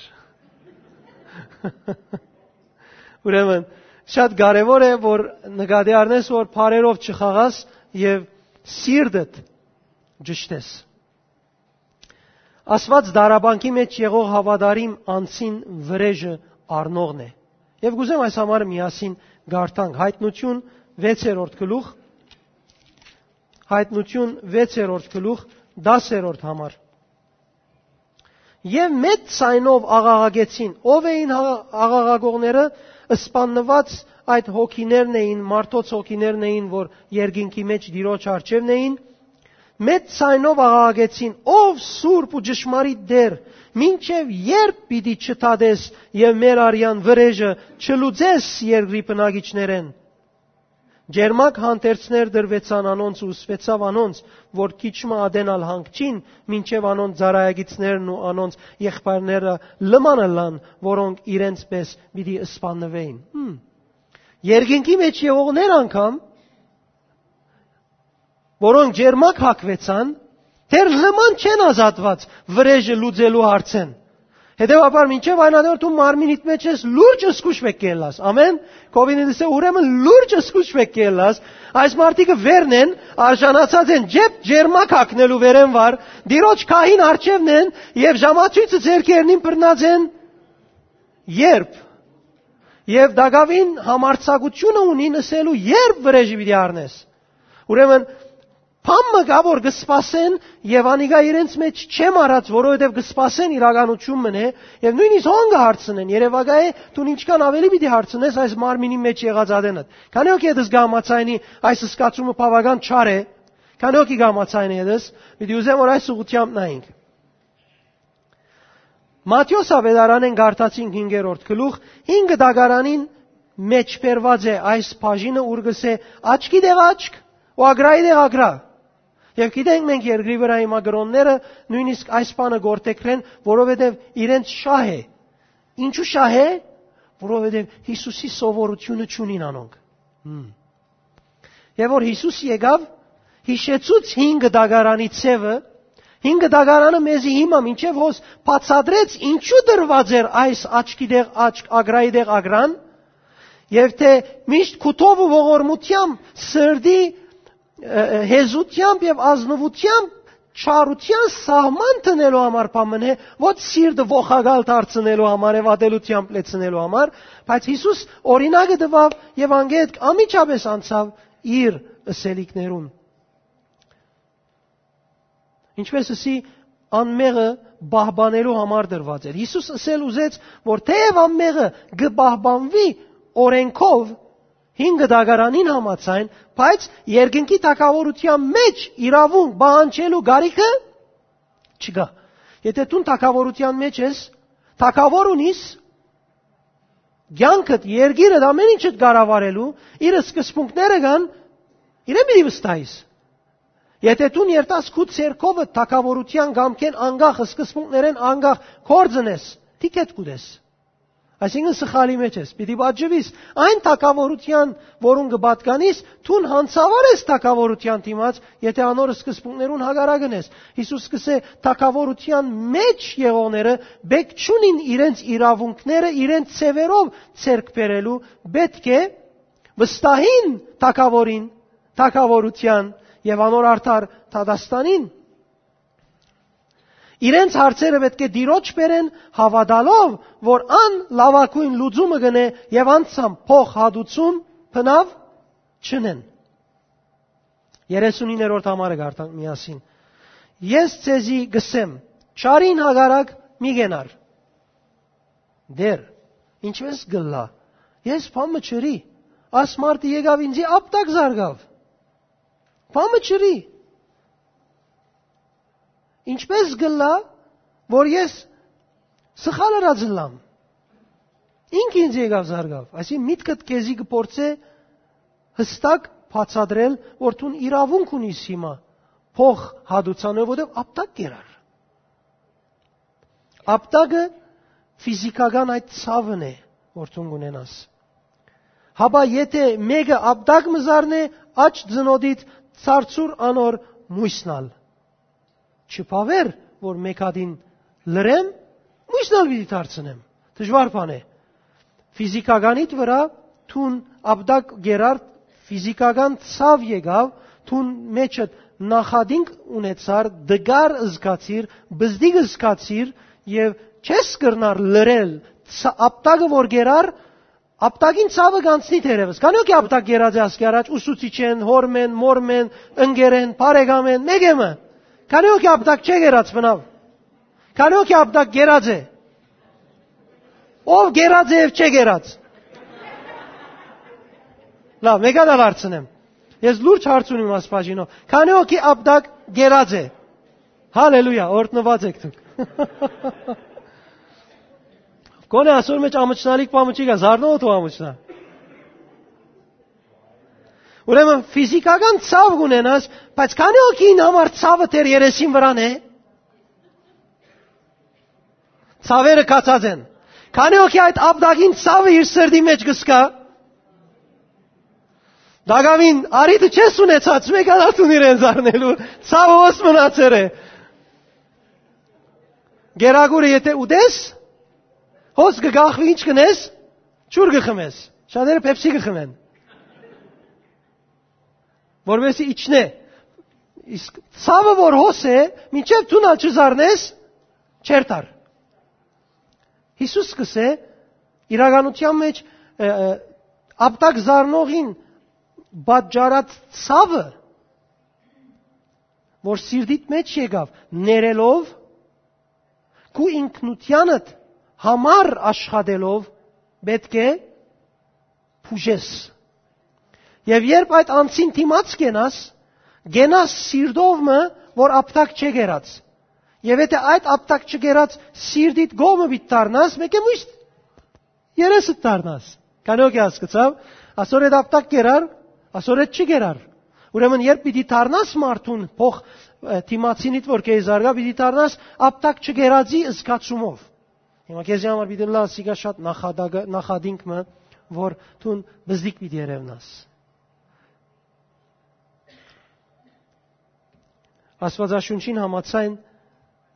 Ուրեմն, շատ կարեւոր է, որ նկատի առնես, որ բարերով չխաղաս եւ սիրտդ ճշտես։ Աստուած դարաբանքի մէջ եղող հաւատարիմ անձին վրէժը առնողն է։ Եւ կ'ուզեմ այս համար միասին կարդանք Յայտնութիւն վեցերորդ գլուխ, Յայտնութիւն վեցերորդ գլուխ, տասերորդ համար։ Եւ մեծ ձայնով աղաղակեցին։ Ո՞վ էին հա-, աղաղակողները։ Սպաննուած այդ հոգիներն էին, մարդոց հոգիներն էին, որ երկինքի մէջ Տիրոջ առջեւն էին։ Մեծ ձայնով աղաղակեցին. «Ով սուրբ ու ճշմարիտ Տէր, մինչեւ ե՞րբ պիտի չդատես եւ մեր արեան վրէժը չլուծես երկրի բնակիչներէն»։ Ջերմակ հանդերձներ դրուեցան անոնց ու ուսուեցաւ անոնց, որ քիչ մը ատեն ալ հանգչին, մինչեւ անոնց ծառայագիցներն ու անոնց եղբայրները լման ըլլան, որոնք իրենց պէս պիտի սպաննուէին։ Հմ։ Երկինքի մէջ եղողներ անգամ, որոնք ջերմակ հագուեցան, դեռ լման չեն ազատուած վրէժը լուծելու հարցէն։ Հետեւաբար, մինչեւ այն ատեն դու մարմինիդ մէջ ես, լուրջ զգուշ պէտք է ըլլաս։ Ամեն։ Քովինը դիսե, ուրեմն լուրջ զգուշ պէտք է ըլլաս։ Այս մարդիկը վերն են, արժանացած են ջեփ ջերմակ հագնելու վերեն վար, Տիրոջ քահին առջեւն են եւ ժամացոյցը ձեռքերնին բռնած են, երբ, եւ տակաւին համարձակությունը ունին ըսելու, երբ վրէժը պիտի առնես։ Ուրեմն, բան մը կայ, որ կը սպասեն, եւ անիկա իրենց մէջ չեմ առած, որովհետեւ կը սպասեն իրականություն մնե, եւ նոյնիսկ հոն կը հարցնեն, երեւակայ է, դուն ինչքան ավելի պիտի հարցնես այս մարմինի մէջ եղած ատենդ։ Քանի՞ հոգի ետս կհամաձայնի այս սկացումը բաւական չար է, քանի՞ հոգի կհամաձայնի ետս, պիտի ուզեմ, որ այս ուղղութեամբ նայենք։ Մատթէոս աւետարանէն կարդացինք հինգերորդ գլուխ, հինգ դագարանին մէջ բերուած է այս բաժինը, ուր կսէ. «Աչքի տեղ աչք ու ագրայի տեղ ագրա»։ Եւ գիտենք մենք երկրի վրայ հիմա կրօնները նոյնիսկ այս բանը գործեգրեն, որովհետեւ իրենց շահ է։ Ինչու շահ է, որովհետեւ Յիսուսի սովորութիւնը չունին անոնք։ Հմ։ Եւ որ Յիսուս եկաւ, յիշեցուց հինգ դագարանի ձևը, հինգ դագարանը մեզի հիմա մինչեւ հոս բացատրեց, ինչու դրված էր այս աչքի տեղ աչք, ագրայի տեղ ագրան, եւ թէ միշտ քութով ու ողորմութեամբ, սրտի, ը, ը, հեզութեամբ եւ ազնուութեամբ չարութեան սահման դնելու համար բան մնե, ոչ սիրտը ողակալ դարձնելու համար եւ ատելութեամբ լեցնելու համար, բայց Յիսուս օրինակը տուաւ եւ անգետ անմիջապէս անցաւ իր ըսելիքներուն։ Ինչպես ըսի, անմեղը պահպանելու համար տրուած էր։ Յիսուս ըսել ուզեց, որ թէեւ անմեղը կը պահպանուի օրէնքով, հին կտակարանին համաձայն, բայց երկնքի թագաւորութեան մէջ իրաւունք պահանջելու կարիքը չկայ։ Եթէ դուն թագաւորութեան մէջ ես, թագաւոր ունիս, կեանքդ, երկիրդ, ամէն ինչդ կառավարելու, իր սկզբունքները կան, իրեն պիտի վստահիս։ Եթէ դուն երթաս քու ձեռքովդ թագաւորութեան կամքէն անկախ, սկզբունքներէն անկախ գործ ընես, թիքետ կու տես։ Այսինքն՝ սխալի մէջ ես, պիտի պատժուիս։ Այն թագաւորութեան, որուն կը պատկանիս, դուն յանցաւար ես թագաւորութեան դիմաց, եթէ անոր սկզբունքներուն հակառակն ես։ Յիսուս կ'ըսէ. «Թագաւորութեան մէջ եղողները պէտք չունին իրենց իրաւունքները իրենց ձեւերով ձեռք բերելու, պէտք է վստահին թագաւորին, թագաւորութեան եւ անոր արդար դատաստանին»։ Իրենց հարցերը պէտք է Տիրոջ բերեն, հաւատալով, որ ան լաւագոյն լուծումը կ'ընէ, եւ անցան փոխհատուցում բնաւ չընեն։ Երեսունիններորդ համարը կարդանք միասին։ «Ես ձեզի կ'ըսեմ. չարին հակառակ մի կենար»։ «Տէր, ինչպէ՞ս կ'ըլլայ։ Ես բան մը չըրի։ Աս մարդը եկաւ ինծի, ապտակ զարկաւ։ Բան մը չըրի։ Ինչպէ՞ս կ'ըլլայ, որ ես սխալ ըրած ըլլամ։ Ինք ինծի եկաւ զարկաւ»։ Այսինքն՝ միտքդ քեզի կը փորձէ յստակ բացատրել, որ դուն իրաւունք ունիս հիմա փոխհատուցանով, որովհետեւ ապտակ կերար։ Ապտակը ֆիզիքական այդ ցաւն է, որ դուն կունենաս։ Հապա եթէ մէկը ապտակ մը զարնէ, աջ ծնոտիդ, ցարցուր անոր մոյսն ալ։ Չբաւեր, որ մէկ հատին լռեմ, մոյսն ալ պիտի դարձնեմ։ Դժուար բան է։ Ֆիզիքականիդ վրայ դուն ապտակ կերար, ֆիզիքական ցաւ եկաւ, դուն մեջդ նախատինք ունեցար, տկար զգացիր, բզդիկ զգացիր եւ չես կրնար լռել, ց-, ապտակը որ կերար, ապտակին ցաւը կանցնի թերեւս։ Քանի՞ հոգի ապտակ կերած է ասկի առաջ, ուսուցիչեն, հօրմեն, մօրմեն, ընկերեն, բարեկամեն, մեկը մը։ Քանի՞ հոգի ապտակ չէ կերած բնաւ։ Քանի՞ հոգի ապտակ կերած է։ Ո՞վ կերած է եւ չէ կերած։ Լավ, մեկը ալ հարցնեմ։ Ես լուրջ հարց ունիմ ասպաժինով։ Քանի՞ հոգի ապտակ կերած է։ Հալելույա, օրհնուած եք դուք։ Գոնե ասոր մեջ ամչնալիք պամը չի գա, զարնող թող ամչնա։ Ուրեմն ֆիզիքական ցաւ կունենաս, բայց քանի՞ հոգին համար ցաւը դեռ երեսին վրան է։ Ցաւերը կացած են։ Քանի՞ հոգի այդ ապտակին ցաւը իր սրտի մեջ կսկա։ Դակավին արիտը չես ունեցած, մեկը ալ դուն իրեն զարնելու, ցաւը հոս մնացեր է։ Գերագուրը եթէ ուտես, հոս կը գախվի, ինչ կ'ընես, ջուր կը խմես, շատերը Pepsi կը խմեն, որպեսզի իջնէ։ Իսկ ցաւը որ հոս է, մինչեւ դուն ալ չզարնես, չերթար։ Յիսուս կ'ըսէ, իրականության մեջ, ը, ը, ապտակ զարնողին պատճառած ցաւը, որ սիրտիդ մեջ եկաւ, ներելով, քու ինքնութեանդ համար աշխատելով, պէտք է բուժես։ Եւ երբ այդ անձին դիմաց կենաս, կենաս սիրտով մը, որ ապտակ չէ կերած։ Եւ եթէ այդ ապտակ չկերած սիրտիդ կողմը պիտի դառնաս, մեկը միշտ երեսը դառնաս։ Քանի՞ հոգի հասկացաւ, ասոր հետ ապտակ կերար, ասոր հետ չի կերար։ Ուրեմն երբ պիտի դառնաս մարդուն փոխ, ը, դիմացինիդ որ քեզի զարգա, պիտի դառնաս ապտակ չկերածի զգացումով։ Հիմա քեզի համար պիտի լա, սիկա շատ նախադագ-, նախադինք մը, որ դուն բզդիկ պիտի երևնաս։ Աստուածաշունչին համաձայն,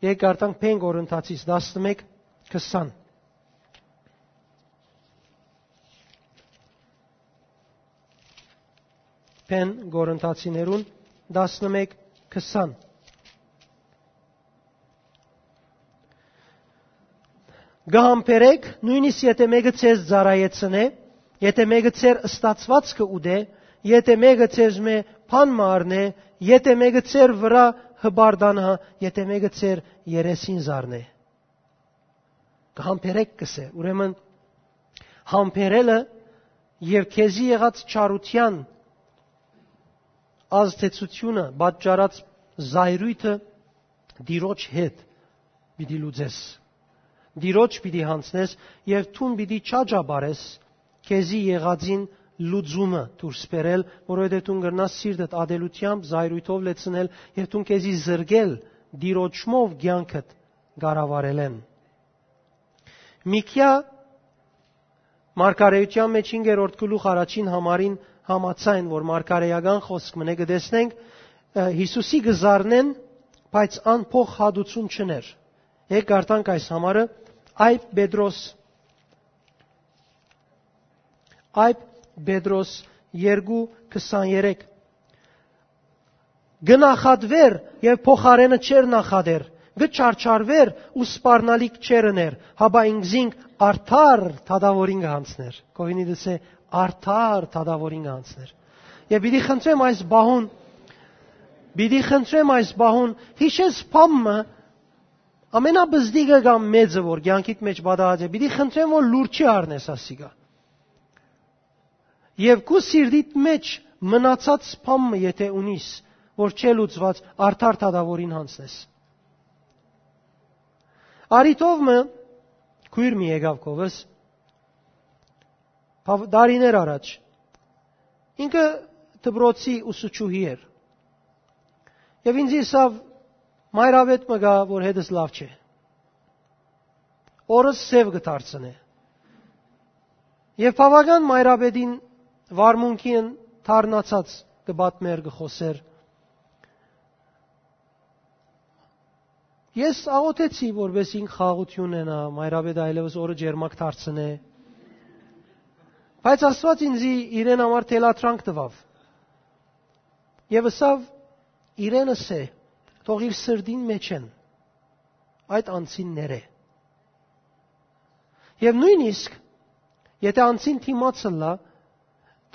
եկեք կարդանք Բեն Կորինթացիս տասնմեկ քսան։ Բեն Կորինթացիներուն տասնմեկ քսան։ Կը համբերեք, նոյնիսկ եթէ մէկը ձեզ ծառայեցնէ, եթէ մէկը ձեր ստացուածքը ուտէ, եթէ մէկը ձեզմէ բան մը առնէ, եթէ մէկը ձեր վրայ հպարտանայ, եթէ մէկը ձեր երեսին զարնէ։ Կը համբերէք, կ'ըսէ։ Ուրեմն, համբերելը եւ քեզի եղած չարութեան ազդեցութիւնը, պատճառած զայրոյթը Տիրոջ հետ պիտի լուծես։ Տիրոջ պիտի յանցնես եւ դուն պիտի չաճապարես քեզի եղածին լուծումը դուրս բերել, որովհետեւ դուն կրնաս սիրտդ ատելութեամբ, զայրոյթով լեցնել եւ դուն քեզի զրկել Տիրոջմով կեանքդ կառավարելէն։ Միքիա մարգարէութեան մէջ հինգերորդ գլուխ առաջին համարին համաձայն, որ մարգարէական խօսք մնէ, կը տեսնենք, ը, Յիսուսի կը զարնեն, բայց ան փոխհատուցում չըներ։ Եկ կարդանք այս համարը. Այբ Պետրոս, Այբ Պետրոս երկու քսաներեք. «Կը նախատուէր եւ փոխարէնը չէր նախատեր, կը չարչարուէր ու սպառնալիք չէր ըներ, հապա ինքզինք արդար դատաւորին կը յանցնէր»։ Կովինի դսէ, արդար դատաւորին կը յանցնէր։ Եւ պիտի խնդրեմ այս բահուն, պիտի խնդրեմ այս բահուն, յիշես բան մը, ամենապզտիկը կամ մեծը, որ կեանքիդ մէջ պատահած է, պիտի խնդրեմ, որ լուր չի առնես ասիկա։ Եւ քու սիրտիդ մէջ մնացած բան մը, եթէ ունիս, որ չէ լուծուած, արդար դատաւորին յանցնես։ Արի թով մը, քոյր մի եկաւ քովս, բաւ-, տարիներ առաջ, ինքը դպրոցի ուսուցչուհի էր։ Եւ ինձ ըսաւ. «Մայրավետ մը կայ, որ հետս լաւ չէ։ Օրս սեւ կը դարձնէ»։ Եւ բաւական մայրապետին վարմունքին դառնացած կը պատմէր, կը խօսէր. «Ես աղօթեցի, որպէս ինք խաղաղութիւն ունենայ, մայրապետը այլեւս օրը ջերմակ դարձնէ։ Բայց Աստուած ինձի իրեն համար թելադրանք տուաւ»։ Եւ ըսաւ. «Իրեն ըսէ, թող իր սրտին մէջէն այդ անձին ներէ»։ Եւ նոյնիսկ եթէ անձին դիմաց ըլլայ,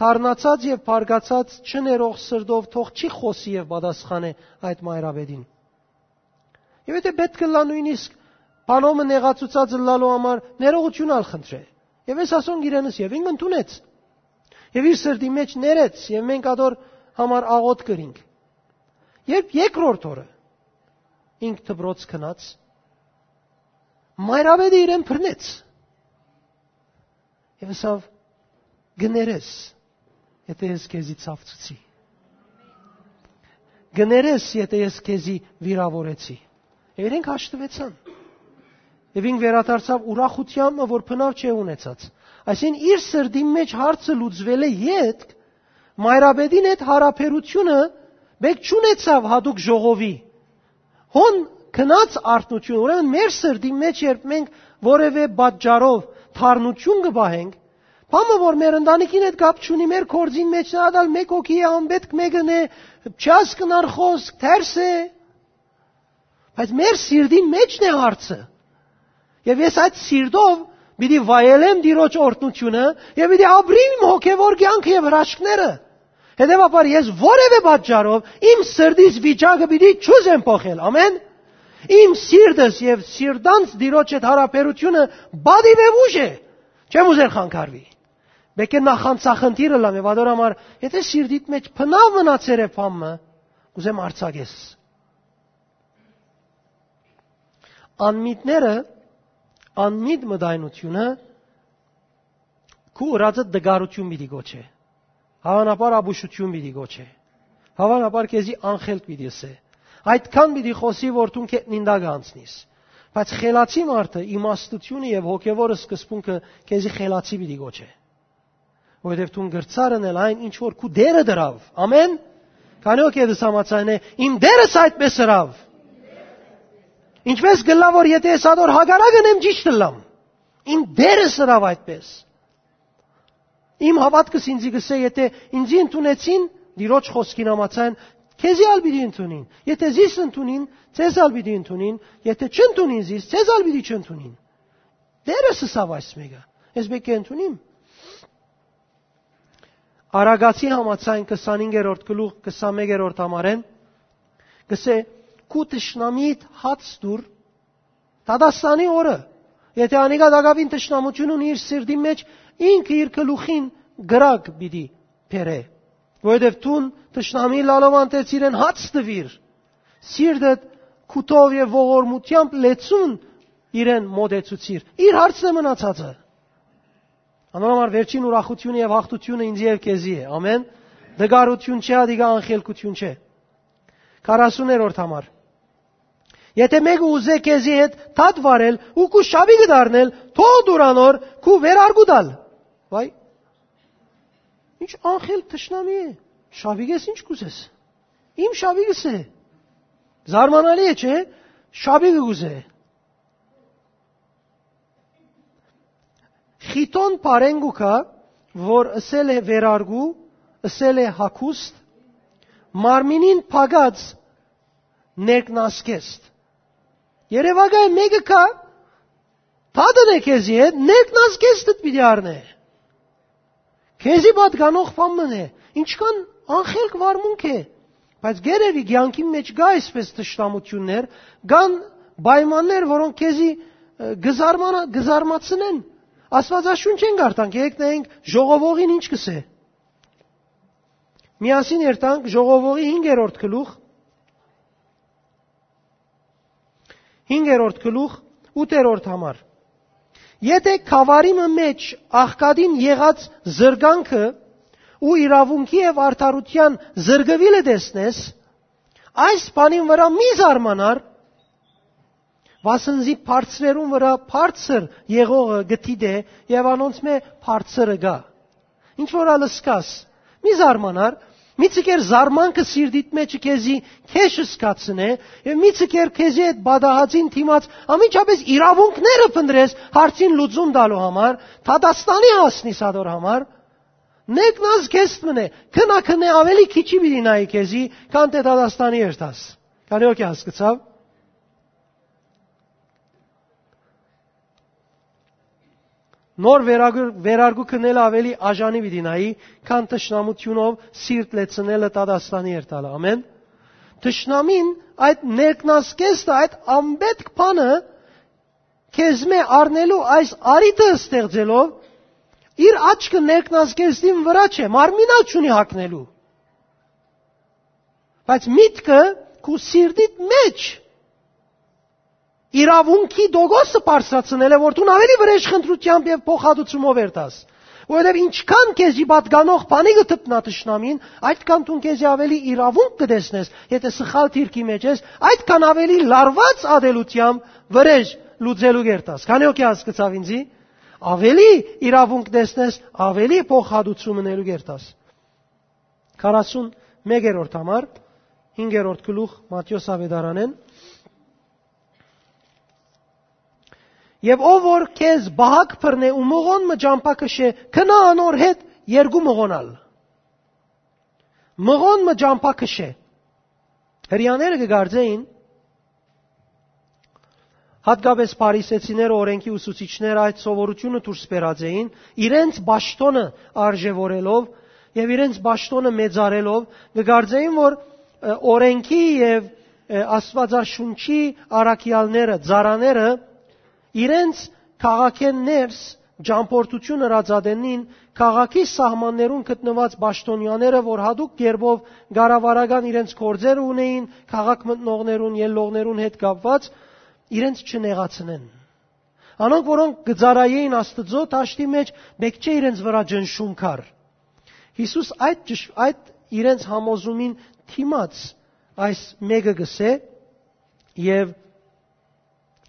դառնացած եւ բարկացած չներող սրտով թող չի խօսի եւ պատասխանէ այդ մայրապետին։ Եւ եթէ պէտք ըլլայ նոյնիսկ բանով մը նեղացուցած ըլլալու համար ներողութիւն ալ խնդրէ։ Եւ ես ասոնք իրենս, եւ ինք ընդունեց։ Եւ իր սրտի մէջ ներեց, եւ մենք ատոր համար աղօթք կրինք։ Երբ երկրորդ օրը ինք դպրոց գնաց, մայրապետը իրեն բռնեց։ Եւ ըսաւ. «Կներես, եթէ ես քեզի ցաւցուցի։ Կներես, եթէ ես քեզի վիրաւորեցի»։ Եւ իրենք հաշտուեցան։ Եւ ինք վերադարձաւ ուրախութեամբ, որ բնաւ չէ ունեցած։ Այսինքն, իր սրտի մէջ հարցը լուծուելէ ետք, մայրապետին հետ յարաբերութիւնը մէկ չունեցաւ յատուկ ժողովի։ Հոն գնաց արթնություն, ուրեմն մեր սրտի մէջ, երբ մենք որևէ պատճառով թարնություն կը պահենք, բանը որ մեր ընտանիքին հետ կապ չունի, մեր գործին մէջ ատալ մէկ հոգի է, անպետք մէկն է, չհասկնար խօսք, թերս է, բայց մեր սիրտին մէջն է հարցը։ Եւ ես այդ սիրտով պիտի վայելեմ Տիրոջ օրհնությունը եւ պիտի ապրիմ իմ հոգեվոր կեանքը եւ հրաշքները։ Հետեւաբար ես որևէ պատճառով իմ սրտիս վիճակը պիտի չուզեմ փոխել։ Ամեն։ Իմ սիրտս եւ սիրտանց Տիրոջ հետ յարաբերությունը պատիվ եւ ուժ է։ Չեմ ուզեր խանգարվի։ Պէտք է նախանցախնդիր ըլլամ եւ ատոր համար, եթէ սիրտիդ մէջ բնաւ մնացեր է բան մը, կուզեմ արձակես։ Անմիտները, անմիտ մտայնությունը քու ըրածը տկարութիւն պիտի գոչէ։ Հաւանաբար ապուշութիւն պիտի գոչէ։ Հաւանաբար քեզի անխելք պիտի ըսէ։ Այդքան պիտի խօսի, որ դուն քետնին տակ անցնիս։ Բայց խելացի մարդը իմաստութիւնը եւ հոգեվոր սկզբունքը քեզի խելացի պիտի գոչէ։ Որովհետեւ դուն կրցար ընել այն, ինչ որ քու Տերը դրաւ։ Ամեն։ Քանի՞ հոգի դες համաձայն է, իմ Տերս այդպես ըրաւ։ Ինչպես կլա, որ եթե ես ատոր հակառակ ընեմ, ճիշդ ըլլամ։ Իմ Տերս ըրաւ այդպես։ Իմ հաւատքս ինձի կսէ, եթէ ինձի ընդունեցին, Տիրոջ խօսքին համաձայն, քեզի ալ պիտի ընդունին։ Եթէ զիս ընդունին, ձեզ ալ պիտի ընդունին, եթէ չընդունին զիս, ձեզ ալ պիտի չընդունին։ Տերս ըսաւ այս մէկը. «Ես մէկը ընդունիմ»։ Արագացի համաձայն քսանհինգերորդ գլուխ, քսանմեկերորդ համարէն, կսէ. քու թշնամիդ հաց տուր, դատաստանի օրը, եթէ անիկա տակաւին թշնամութիւն ունի իր սիրտին մէջ, ինքը իր գլուխին կրակ պիտի բերէ, որովհետեւ դուն թշնամի լալով անտեսիր են հաց տուիր, սիրտդ քութով եւ ողորմութեամբ լեցուն իրեն մոտեցուցիր։ Իր հարցն է մնացածը։ Անոր համար վերջին ուրախութիւնը եւ յաղթութիւնը ինձ եւ քեզի է։ Ամեն։ Դգարութիւն չէ, ադիկա անխելքութիւն չէ։ Քառասուներորդ համար։ Եթէ մէկը ուզէ քեզի հետ դատ վարել ու քու շապիկը դառնել, թող դուր անոր քու վերարկու տալ։ Վայ, ինչ անխել թշնամի է։ Շապիկ ես, ինչ կուզես։ Իմ շապիկս է։ Զարմանալի է, չէ՞։ Շապիկը կուզէ։ Խիթոն բառէն կու գայ, որ ըսել է վերարկու, ըսել է հագուստ, մարմինին փակած ներքնազգեստ։ Երեւակայ մէկը կայ, դատն է քեզի հետ, ներքնազգեստդ պիտի առնէ։ Քեզի պատկանող բան մըն է, ինչքան անխելք վարմունք է, բայց գերեւի կեանքին մէջ կա այսպես թշնամութիւններ, կան պայմաններ, որոնք քեզի, ը, կզարմանա-, կզարմացնեն։ Աստուածաշունչէն կարդանք, եկեք նայենք ժողովողին ինչ կսէ։ Միասին երթանք ժողովողի հինգերորդ գլուխ, հինգերորդ գլուխ, ութերորդ համար։ Եթէ գաւառի մը մէջ աղքատին եղած զրկանքը ու իրաւունքի եւ արդարութեան զրկուիլը տեսնես, այս բանին վրայ մի զարմանար, վասն զի բարձրերուն վրայ բարձր եղողը կը դիտէ եւ անոնցմէ բարձրը կայ։ Ինչ որ ալ ըսկաս, մի զարմանար, մի ցկեր զարմանքը սիրտիդ մէջը քեզի քեշ ըսկացնէ եւ մի ցկեր քեզի այդ պատահածին դիմաց ամիջապես իրաւունքները փնտրես հարցին լուծում տալու համար, դատաստանի հասնիս ադոր համար, ներքնազ քեզ մնե, քնա քնե ավելի քիչի պիտի նայի քեզի, քան դե դատաստանի երթաս։ Քանի օքե հասկացաւ։ Նոր վերագ-, վերարգու քնելը ավելի աժանի պիտի նայի, քան թշնամութիւնով սիրտ լեցնելը դատաստանի երթալը։ Ամեն։ Թշնամին այդ ներքնազգեստը, այդ ամբետք բանը քեզմէ առնելու այս արիթը ստեղծելով, իր աչքը ներքնազգեստին վրա չէ, մարմինալ չունի հագնելու։ Բայց միտքը քու սիրտիդ մեջ իրաւունքի դոգոսը բարձրացնել է, որ դուն ավելի վրեժ խնդրությամբ եւ փոխհատուցումով երթաս։ Որովհետեւ ինչքան քեզի պատկանող բանի կը դպնայ թշնամին, այդքան դուն քեզի ավելի իրաւունք կը տեսնես, եթե սխալ դիրքի մեջ ես, այդքան ավելի լարված ատելությամբ վրեժ լուծելու կերտաս։ Քանի օքե հասկացաւ ինձի, ավելի իրաւունք տեսնես, ավելի փոխհատուցում ընելու կերտաս։ Քառասուն մեկերորդ համար, հինգերորդ գլուխ Մատթէոս Ավետարանէն։ Եւ ով որ քեզ բահակ բռնէ ու մղոն մը ճամբա քշէ, քնա անոր հետ երկու մղոնալ։ Մղոն մը ճամբա քշէ։ Հրեաները կը կարծէին, հատկապես փարիսեցիները, օրենքի ուսուցիչները այդ սովորությունը դուրս բերած էին, իրենց պաշտոնը արժեվորելով եւ իրենց պաշտոնը մեծարելով, կը կարծէին, որ, ը, օրենքի եւ, ը, Աստուածաշունչի առաքեալները, ծառաները իրենց քաղաքէն ներս ճամբորդություն ըրած ատենին, քաղաքի սահմաններուն գտնուած պաշտոնյաները, որ յատուկ կերպով կառավարական իրենց գործերը ունեին քաղաք մտնողներուն, ելլողներուն հետ կապված, իրենց չնեղացնեն։ Անոնք, որոնք կը ծառայեին Աստուծոյ դաշտի մեջ, պէտք չէ իրենց վրայ ճնշում կար։ Յիսուս այդ ճշ-, այդ իրենց համոզումին դիմաց այս մեկը կսէ եւ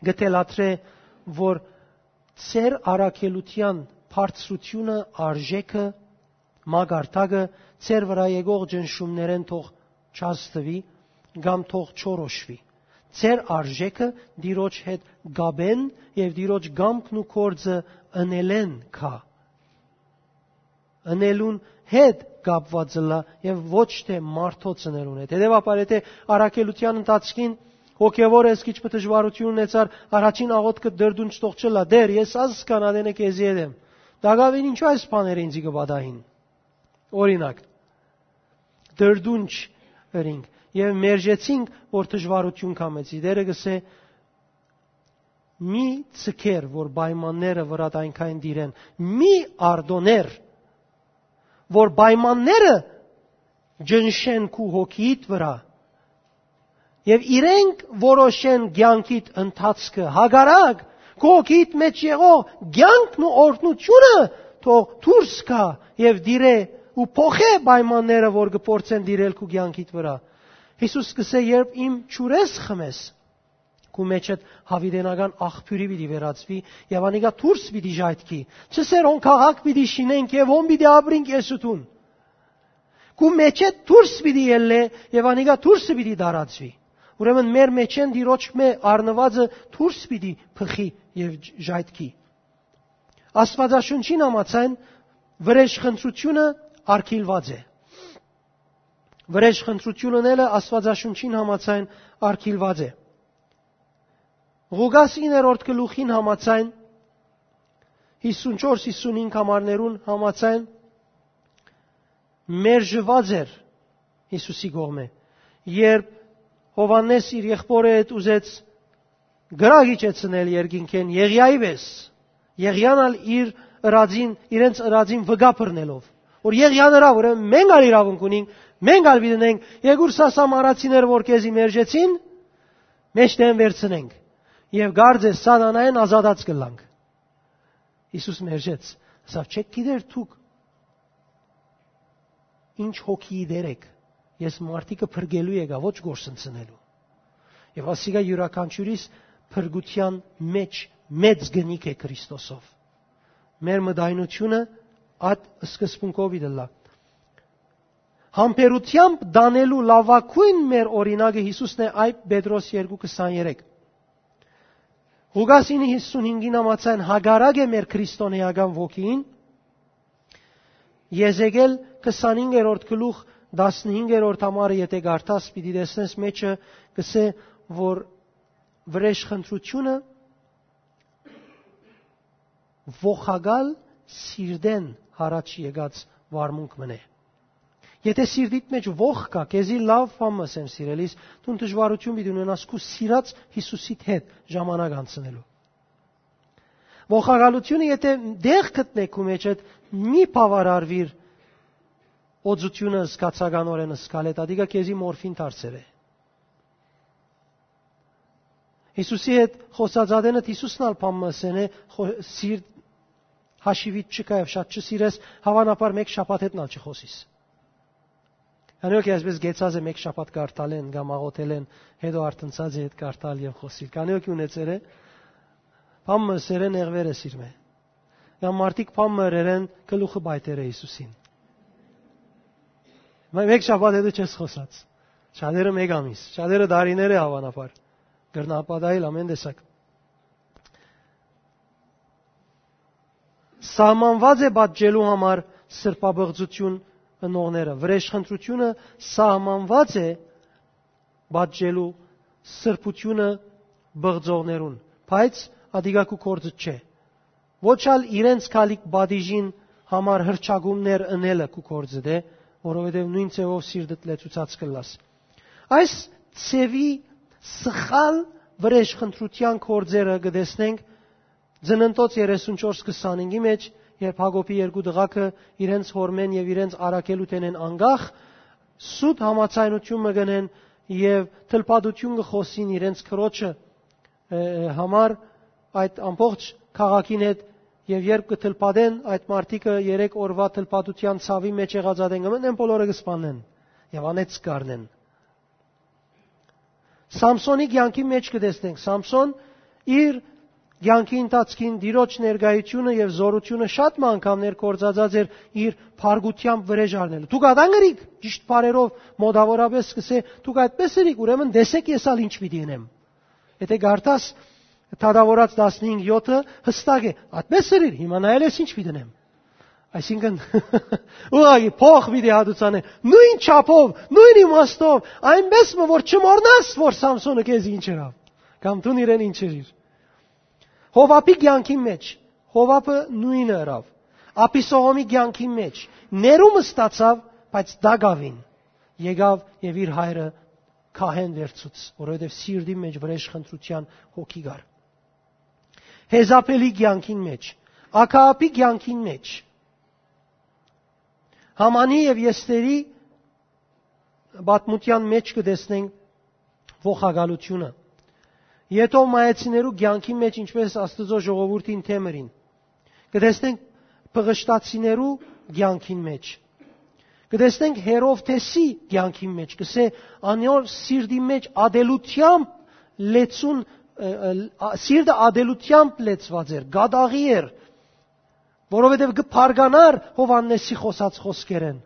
կը թելադրէ, որ ձեր առաքելութեան բարձրությունը, արժէքը, մակարդակը ձեր վրայ եկող ճնշումներէն թող չազդուի կամ թող չորոշուի։ Ձեր արժէքը Տիրոջ հետ կապէն եւ Տիրոջ կամքն ու գործը ընելէն գայ, ընելուն հետ կապուած ըլլայ եւ ոչ թէ մարդոց ընելուն հետ։ Հետեւաբար, եթէ առաքելութեան ընթացքին հոգեւոր ես քիչ մը դժուարութիւն ունեցար, առաջին աղօթքը դրդունջ թող չըլլայ. «Տէր, ես ազգ կանատենը քեզի հետ եմ»։ Տակաւին ինչու այս բաները ինձի կը պատահին։ Օրինակ, դրդունջ ըրինք։ Եւ մերժեցինք, որ դժուարութիւն կամեցի։ Տէրը կ'ըսէ. «Մի ձգեր, որ պայմանները վրադ այնքան տիրեն, մի արտոներ, որ պայմանները ջնշեն քու հոգիդ վրայ, եւ իրենք որոշեն կեանքիդ ընթացքը։ Հակառակ, քու հոգիդ մէջ եղող կեանքն ու օրհնութիւնը թող դուրս գայ եւ տիրէ ու փոխէ պայմանները, որ կը փորձեն տիրել քու կեանքիդ վրայ»։ Յիսուս կ'ըսէ. «Երբ իմ ջուրես խմես, քու մէջդ յաւիտենական աղբիւրի պիտի վերածուի եւ անիկա դուրս պիտի ժայթքի։ Չ'ըսեր հոն քաղաք պիտի շինենք եւ հոն պիտի ապրինք ես ու դուն։ Քու մէջդ դուրս պիտի ելլէ եւ անիկա դուրսը պիտի տարածուի»։ Ուրեմն մեր մէջէն Տիրոջ մէ առնուածը դուրս պիտի բխի եւ ժայթքի։ Աստուածաշունչին համաձայն վրեժխնդրութիւնը արգիլուած է։ Վրեժխնդրութիւնն ելը Աստուածաշունչին համաձայն արգիլուած է։ Ղուկաս իններորդ գլուխին համաձայն, հիսունչորս հիսունհինգ համարներուն համաձայն մերժուած էր Յիսուսի կողմէ, երբ Յովհաննէս իր եղբօրը հետ ուզեց կրակ իջեցնել երկինքէն Եղիայի պէս, Եղիան ալ իր ըրածին, իրենց ըրածին վկայ բռնելով, որ Եղիան ըրաւ, ուրեմն մենք ալ իրաւունք ունենք, մենք ալ պիտի ունենք, երկուր սա սամարացիները, որ քեզի մերժեցին, մէջտեղէն վերցնենք եւ կարծես սատանայէն ազատած կ'ըլլանք։ Յիսուս մերժեց, ասաւ. «Չէք գիտեր դուք ինչ հոգիի դեր էք, ես մարդիկը փրկելու եկայ, ոչ գործընծնելու»։ Եւ ասիկա յուրաքանչիւրիս փրկութեան մէջ մեծ գնիք է Քրիստոսով։ Մեր մտայնութիւնը այդ սկզբունքով պիտի ըլլայ։ Համբերութեամբ տանելու լաւագոյն մեր օրինակը Յիսուսն է, Այբ Պետրոս երկու քսաներեք։ Ղուկաս ինը հիսունհինգին համաձայն հակառակ է մեր քրիստոնեական ոգիին։ Եզեկել քսանհինգերորդ գլուխ, տասնհինգերորդ համարը եթէ կարդաս, պիտի տեսնես, մէջը կ'ըսէ, որ վրեժխնդրութիւնը ողակալ սիրտէն յառաջ եկած վարմունք մըն է։ Եթէ սիրտիդ մէջ ողք կայ, քեզի լաւ բան մը ըսեմ, սիրելիս, դուն դժուարութիւն պիտի ունենաս քու սիրած Յիսուսիդ հետ ժամանակ անցնելու։ Ողակալութիւնը եթէ տեղ գտնէ քու մէջդ, մի բաւարարուիր օծութիւնը զգացականօրէն զգալ հետ, ատիկա քեզի մորֆին դարձեր է։ Յիսուսի հետ խօսած ատենդ Յիսուսն ալ բան մը ըսեն է, խո-, սիրտ հաշիվիդ չկայ եւ շատ չսիրես, հաւանաբար մէկ շաբաթ հետն ալ չխօսիս։ Անոնք այսպես գեցած է մէկ շաբաթ կարդալեն կամ աղոթելեն, հետո արթնցած է հետ կարդալ եւ խօսիլ։ Քանի օքի ունեցեր է, բան մը ըսեր է, նեղվեր է սիրմէ։ Կամ մարդիկ բան մը ըրեր են, գլուխը պայթեր է Յիսուսին։ Մե-, մէկ շաբաթ հետո չես խօսած։ Շատերը մէկ ամիս, շատերը դարիներ է հաւանաբար։ Կրնա պատահել ամեն տեսակ։ Սահմանված է պատժելու համար սրբապղծություն ընողները։ Վրեժխնդրությունը սահմանված է պատժելու սրբությունը բղծողներուն, բայց ատիկա քու գործը չէ։ Ոչ ալ իրենց գալիք պատիժին համար հրճակումներ ընելը քու գործը դէ, որովհետև նոյն ձևով սիրտդ լեցուցած կ'ըլլաս։ Այս ձևի սխալ վրեժխնդրութեան գործերը կը տեսնենք Ծննդոց երեսունչորս քսանինգի մեջ, երբ Յակոբի երկու տղաքը իրենց հօրմէն եւ իրենց առաքելութենէն անկախ, սուտ համաձայնութիւն մը կ'ընեն եւ թլփատութիւն կը խօսին իրենց քրոջը, ը, համար այդ ամբողջ քաղաքին հետ, եւ երբ կը թլփատեն, այդ մարդիկը երեք օրվա թլփատութեան ցաւի մեջ եղած ատեն կը մտնեն, բոլորը կը սպանեն եւ անեծ կ'առնեն։ Սամսոնի կեանքի մեջ կը տեսնենք, Սամսոն իր կեանքի ընթացքին Տիրոջ ներկայությունը եւ զօրությունը շատ մը անգամներ գործածած էր իր փառքութեամբ վրեժ առնելու։ Դուք ատա՞ն կրիք, ճիշդ բառերով մոտավորապես սկսե, դուք այդպես ըրիք, ուրեմն տեսեք ես ալ ինչ պիտի ընեմ։ Եթե կարդաս Թագաւորաց տասնհինգ յոթը, հստակ է, այդպես ըրիր, հիմա նայել ես ինչ պիտի ընեմ։ Այսինքն, ուղղակի փոխ պիտի հատուցանե, նոյն չափով, նոյն իմաստով, այնպես մը որ չմոռնաս, որ Սամսոնը քեզի ինչ ըրաւ, կամ դուն իրեն ինչ ըրիր։ Հովհապի կեանքի մեջ, Հովհապը նոյնը ըրաւ։ Աբիսողոմի կեանքի մեջ, ներում ստացաւ, բայց տակաւին եկաւ եւ իր հայրը քահեն վերցուց, որովհետեւ սիրտին մէջ վրէժ խնդրութեան հոգի կար։ Հեզապելի կեանքին մէջ, ակաապի կեանքին մէջ, Համանի եւ Եստերի պատմութեան մէջ կը տեսնենք ողակալութիւնը։ Եդովմայեցիներու կեանքին մէջ ինչպէս Աստուծոյ ժողովուրդին դէմ ըրին։ Կը տեսնենք Պղշտացիներու կեանքին մէջ։ Կը տեսնենք Հերովդէսի կեանքին մէջ, կսէ, անոր սիրտի մէջ ատելութեամբ լեցուն, ը, ը, ա, սիրտը ատելութեամբ լեցուած էր, կատաղի էր, որովհետեւ կը բարգանար Յովհաննէսի խօսած խօսքերէն։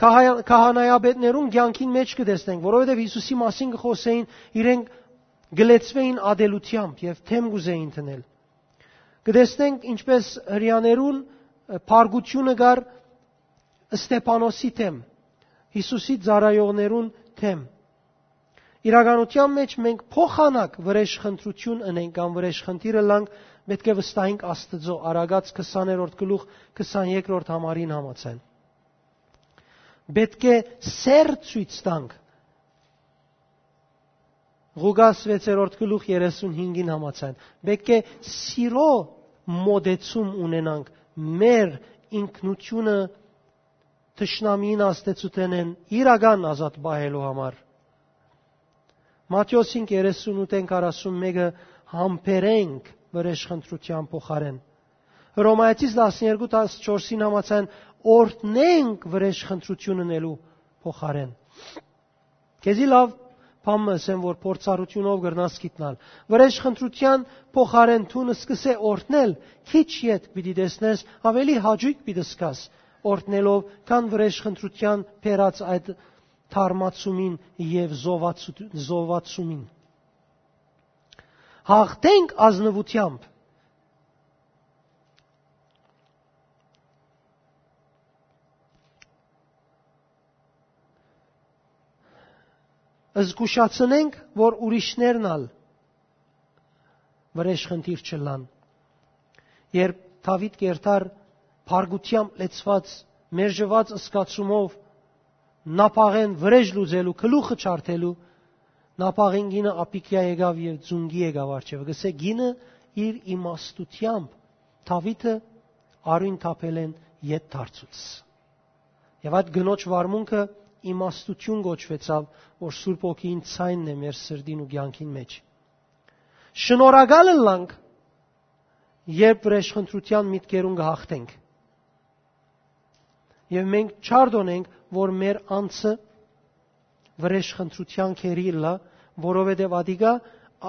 Քահայ-, քահանայապետներուն կեանքին մէջ կը տեսնենք, որովհետեւ Յիսուսի մասին կը խօսէին, իրենք կը լեցուէին ատելութեամբ եւ դէմ կ'ուզէին դնել։ Կը տեսնենք ինչպէս հրեաներուն, ը, փառկութիւնը կար Ստեփանոսի դէմ, Յիսուսի ծառայողներուն դէմ։ Իրականութեան մէջ մենք փոխանակ վրէժ խնդրութիւն ընենք կամ վրէժ խնդիր ըլլանք, պէտք է վստահենք Աստուծոյ, Արագած քսաներորդ գլուխ քսանեքրորդ համարին համաձայն։ Պէտք է սէր ցոյց տանք Ղուկաս վեցերորդ գլուխ երեսունհինգին համաձայն։ Պէտք է սիրո մոտեցում ունենանք մեր ինքնությունը թշնամիին ազդեցութենէն իրական ազատ պահելու համար։ Մատթէոս հինգ երեսունութ են քառասունմէկը համբերենք վրէժ խնդրութեան փոխարեն։ Հռոմայեցիս տասներկու տասնչորսին համաձայն օրհնենք վրէժ խնդրութիւն ընելու փոխարեն։ Քեզի լաւ բան մը ըսեմ, որ փորձառութիւնով կրնաս գիտնալ։ Վրէժ խնդրութեան փոխարեն դուն սկսե օրհնել, քիչ ետք պիտի տեսնես, ավելի հաճոյք պիտի զգաս օրհնելով, քան վրէժ խնդրութեան բերած այդ թարմացումին եւ զովացու-, զովացումին։ Հաղթենք ազնուութեամբ։ Զգուշացնենք, որ ուրիշներն ալ վրէժ խնդիր չըլլան։ Երբ Դաւիթ կերտար փառկութեամբ լեցուած, մերժուած զգացումով, Նապաղեն վրէժ լուծելու, գլուխը չարդելու, Նապաղին կինը Աբիգիա եկաւ եւ ծունկի եկաւ առջեւը։ Կսէ, կինը իր իմաստութեամբ Դաւիթը արիւն թափելէն ետ դարձուց։ Եւ այդ կնոջ վարմունքը իմաստութիւն կոչուեցաւ, որ Սուրբ Հոգին ցայնն է մեր սրտին ու կեանքին մէջ։ Շնորհակալ ըլլանք, երբ վրէժ խնդրութեան միտքերուն կը հաղթենք։ Եւ մենք չարդոնենք, որ մեր անձը վրէժ խնդրութեան քերի ըլլայ, որովհետեւ ատիկա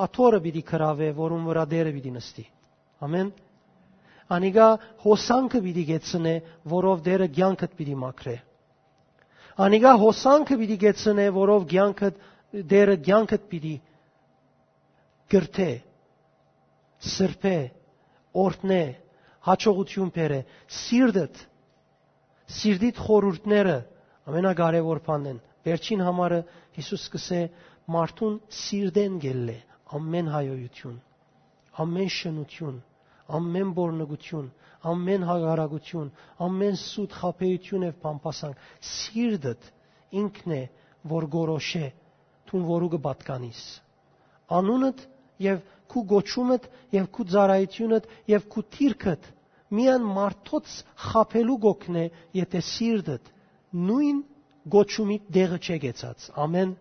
աթոռը պիտի գրաւէ, որուն վրայ Տէրը պիտի նստի։ Ամեն։ Անիկա հոսանքը պիտի գեցնէ, որով Տէրը կեանքդ պիտի մաքրէ։ Անիկա հոսանքը պիտի գեցնէ, որով կեանքդ, Տէրը կեանքդ պիտի կրթէ, սրբէ, օրհնէ, յաջողութիւն բերէ, սիրտդ, սիրտիդ խորհուրդները ամենակարեւոր բանն են։ Վերջին համարը Յիսուս կսէ, մարդուն սիրտէն գելլէ ամեն հայոյութիւն, ամեն շնութիւն, ամեն բորնգութիւն, ամեն հակառակութիւն, ամեն սուտ խաբեութիւն եւ բամբասանք։ Սիրտդ ինքն է, որ գորոշէ, դուն որու կը պատկանիս։ Անունդ եւ քու կոչումդ եւ քու ծառայութիւնդ եւ քու դիրքդ միայն մարդոց խաբելու կօգնէ, եթե սիրտդ նոյն կոչումի տեղը չէ գեցած։ Ամեն։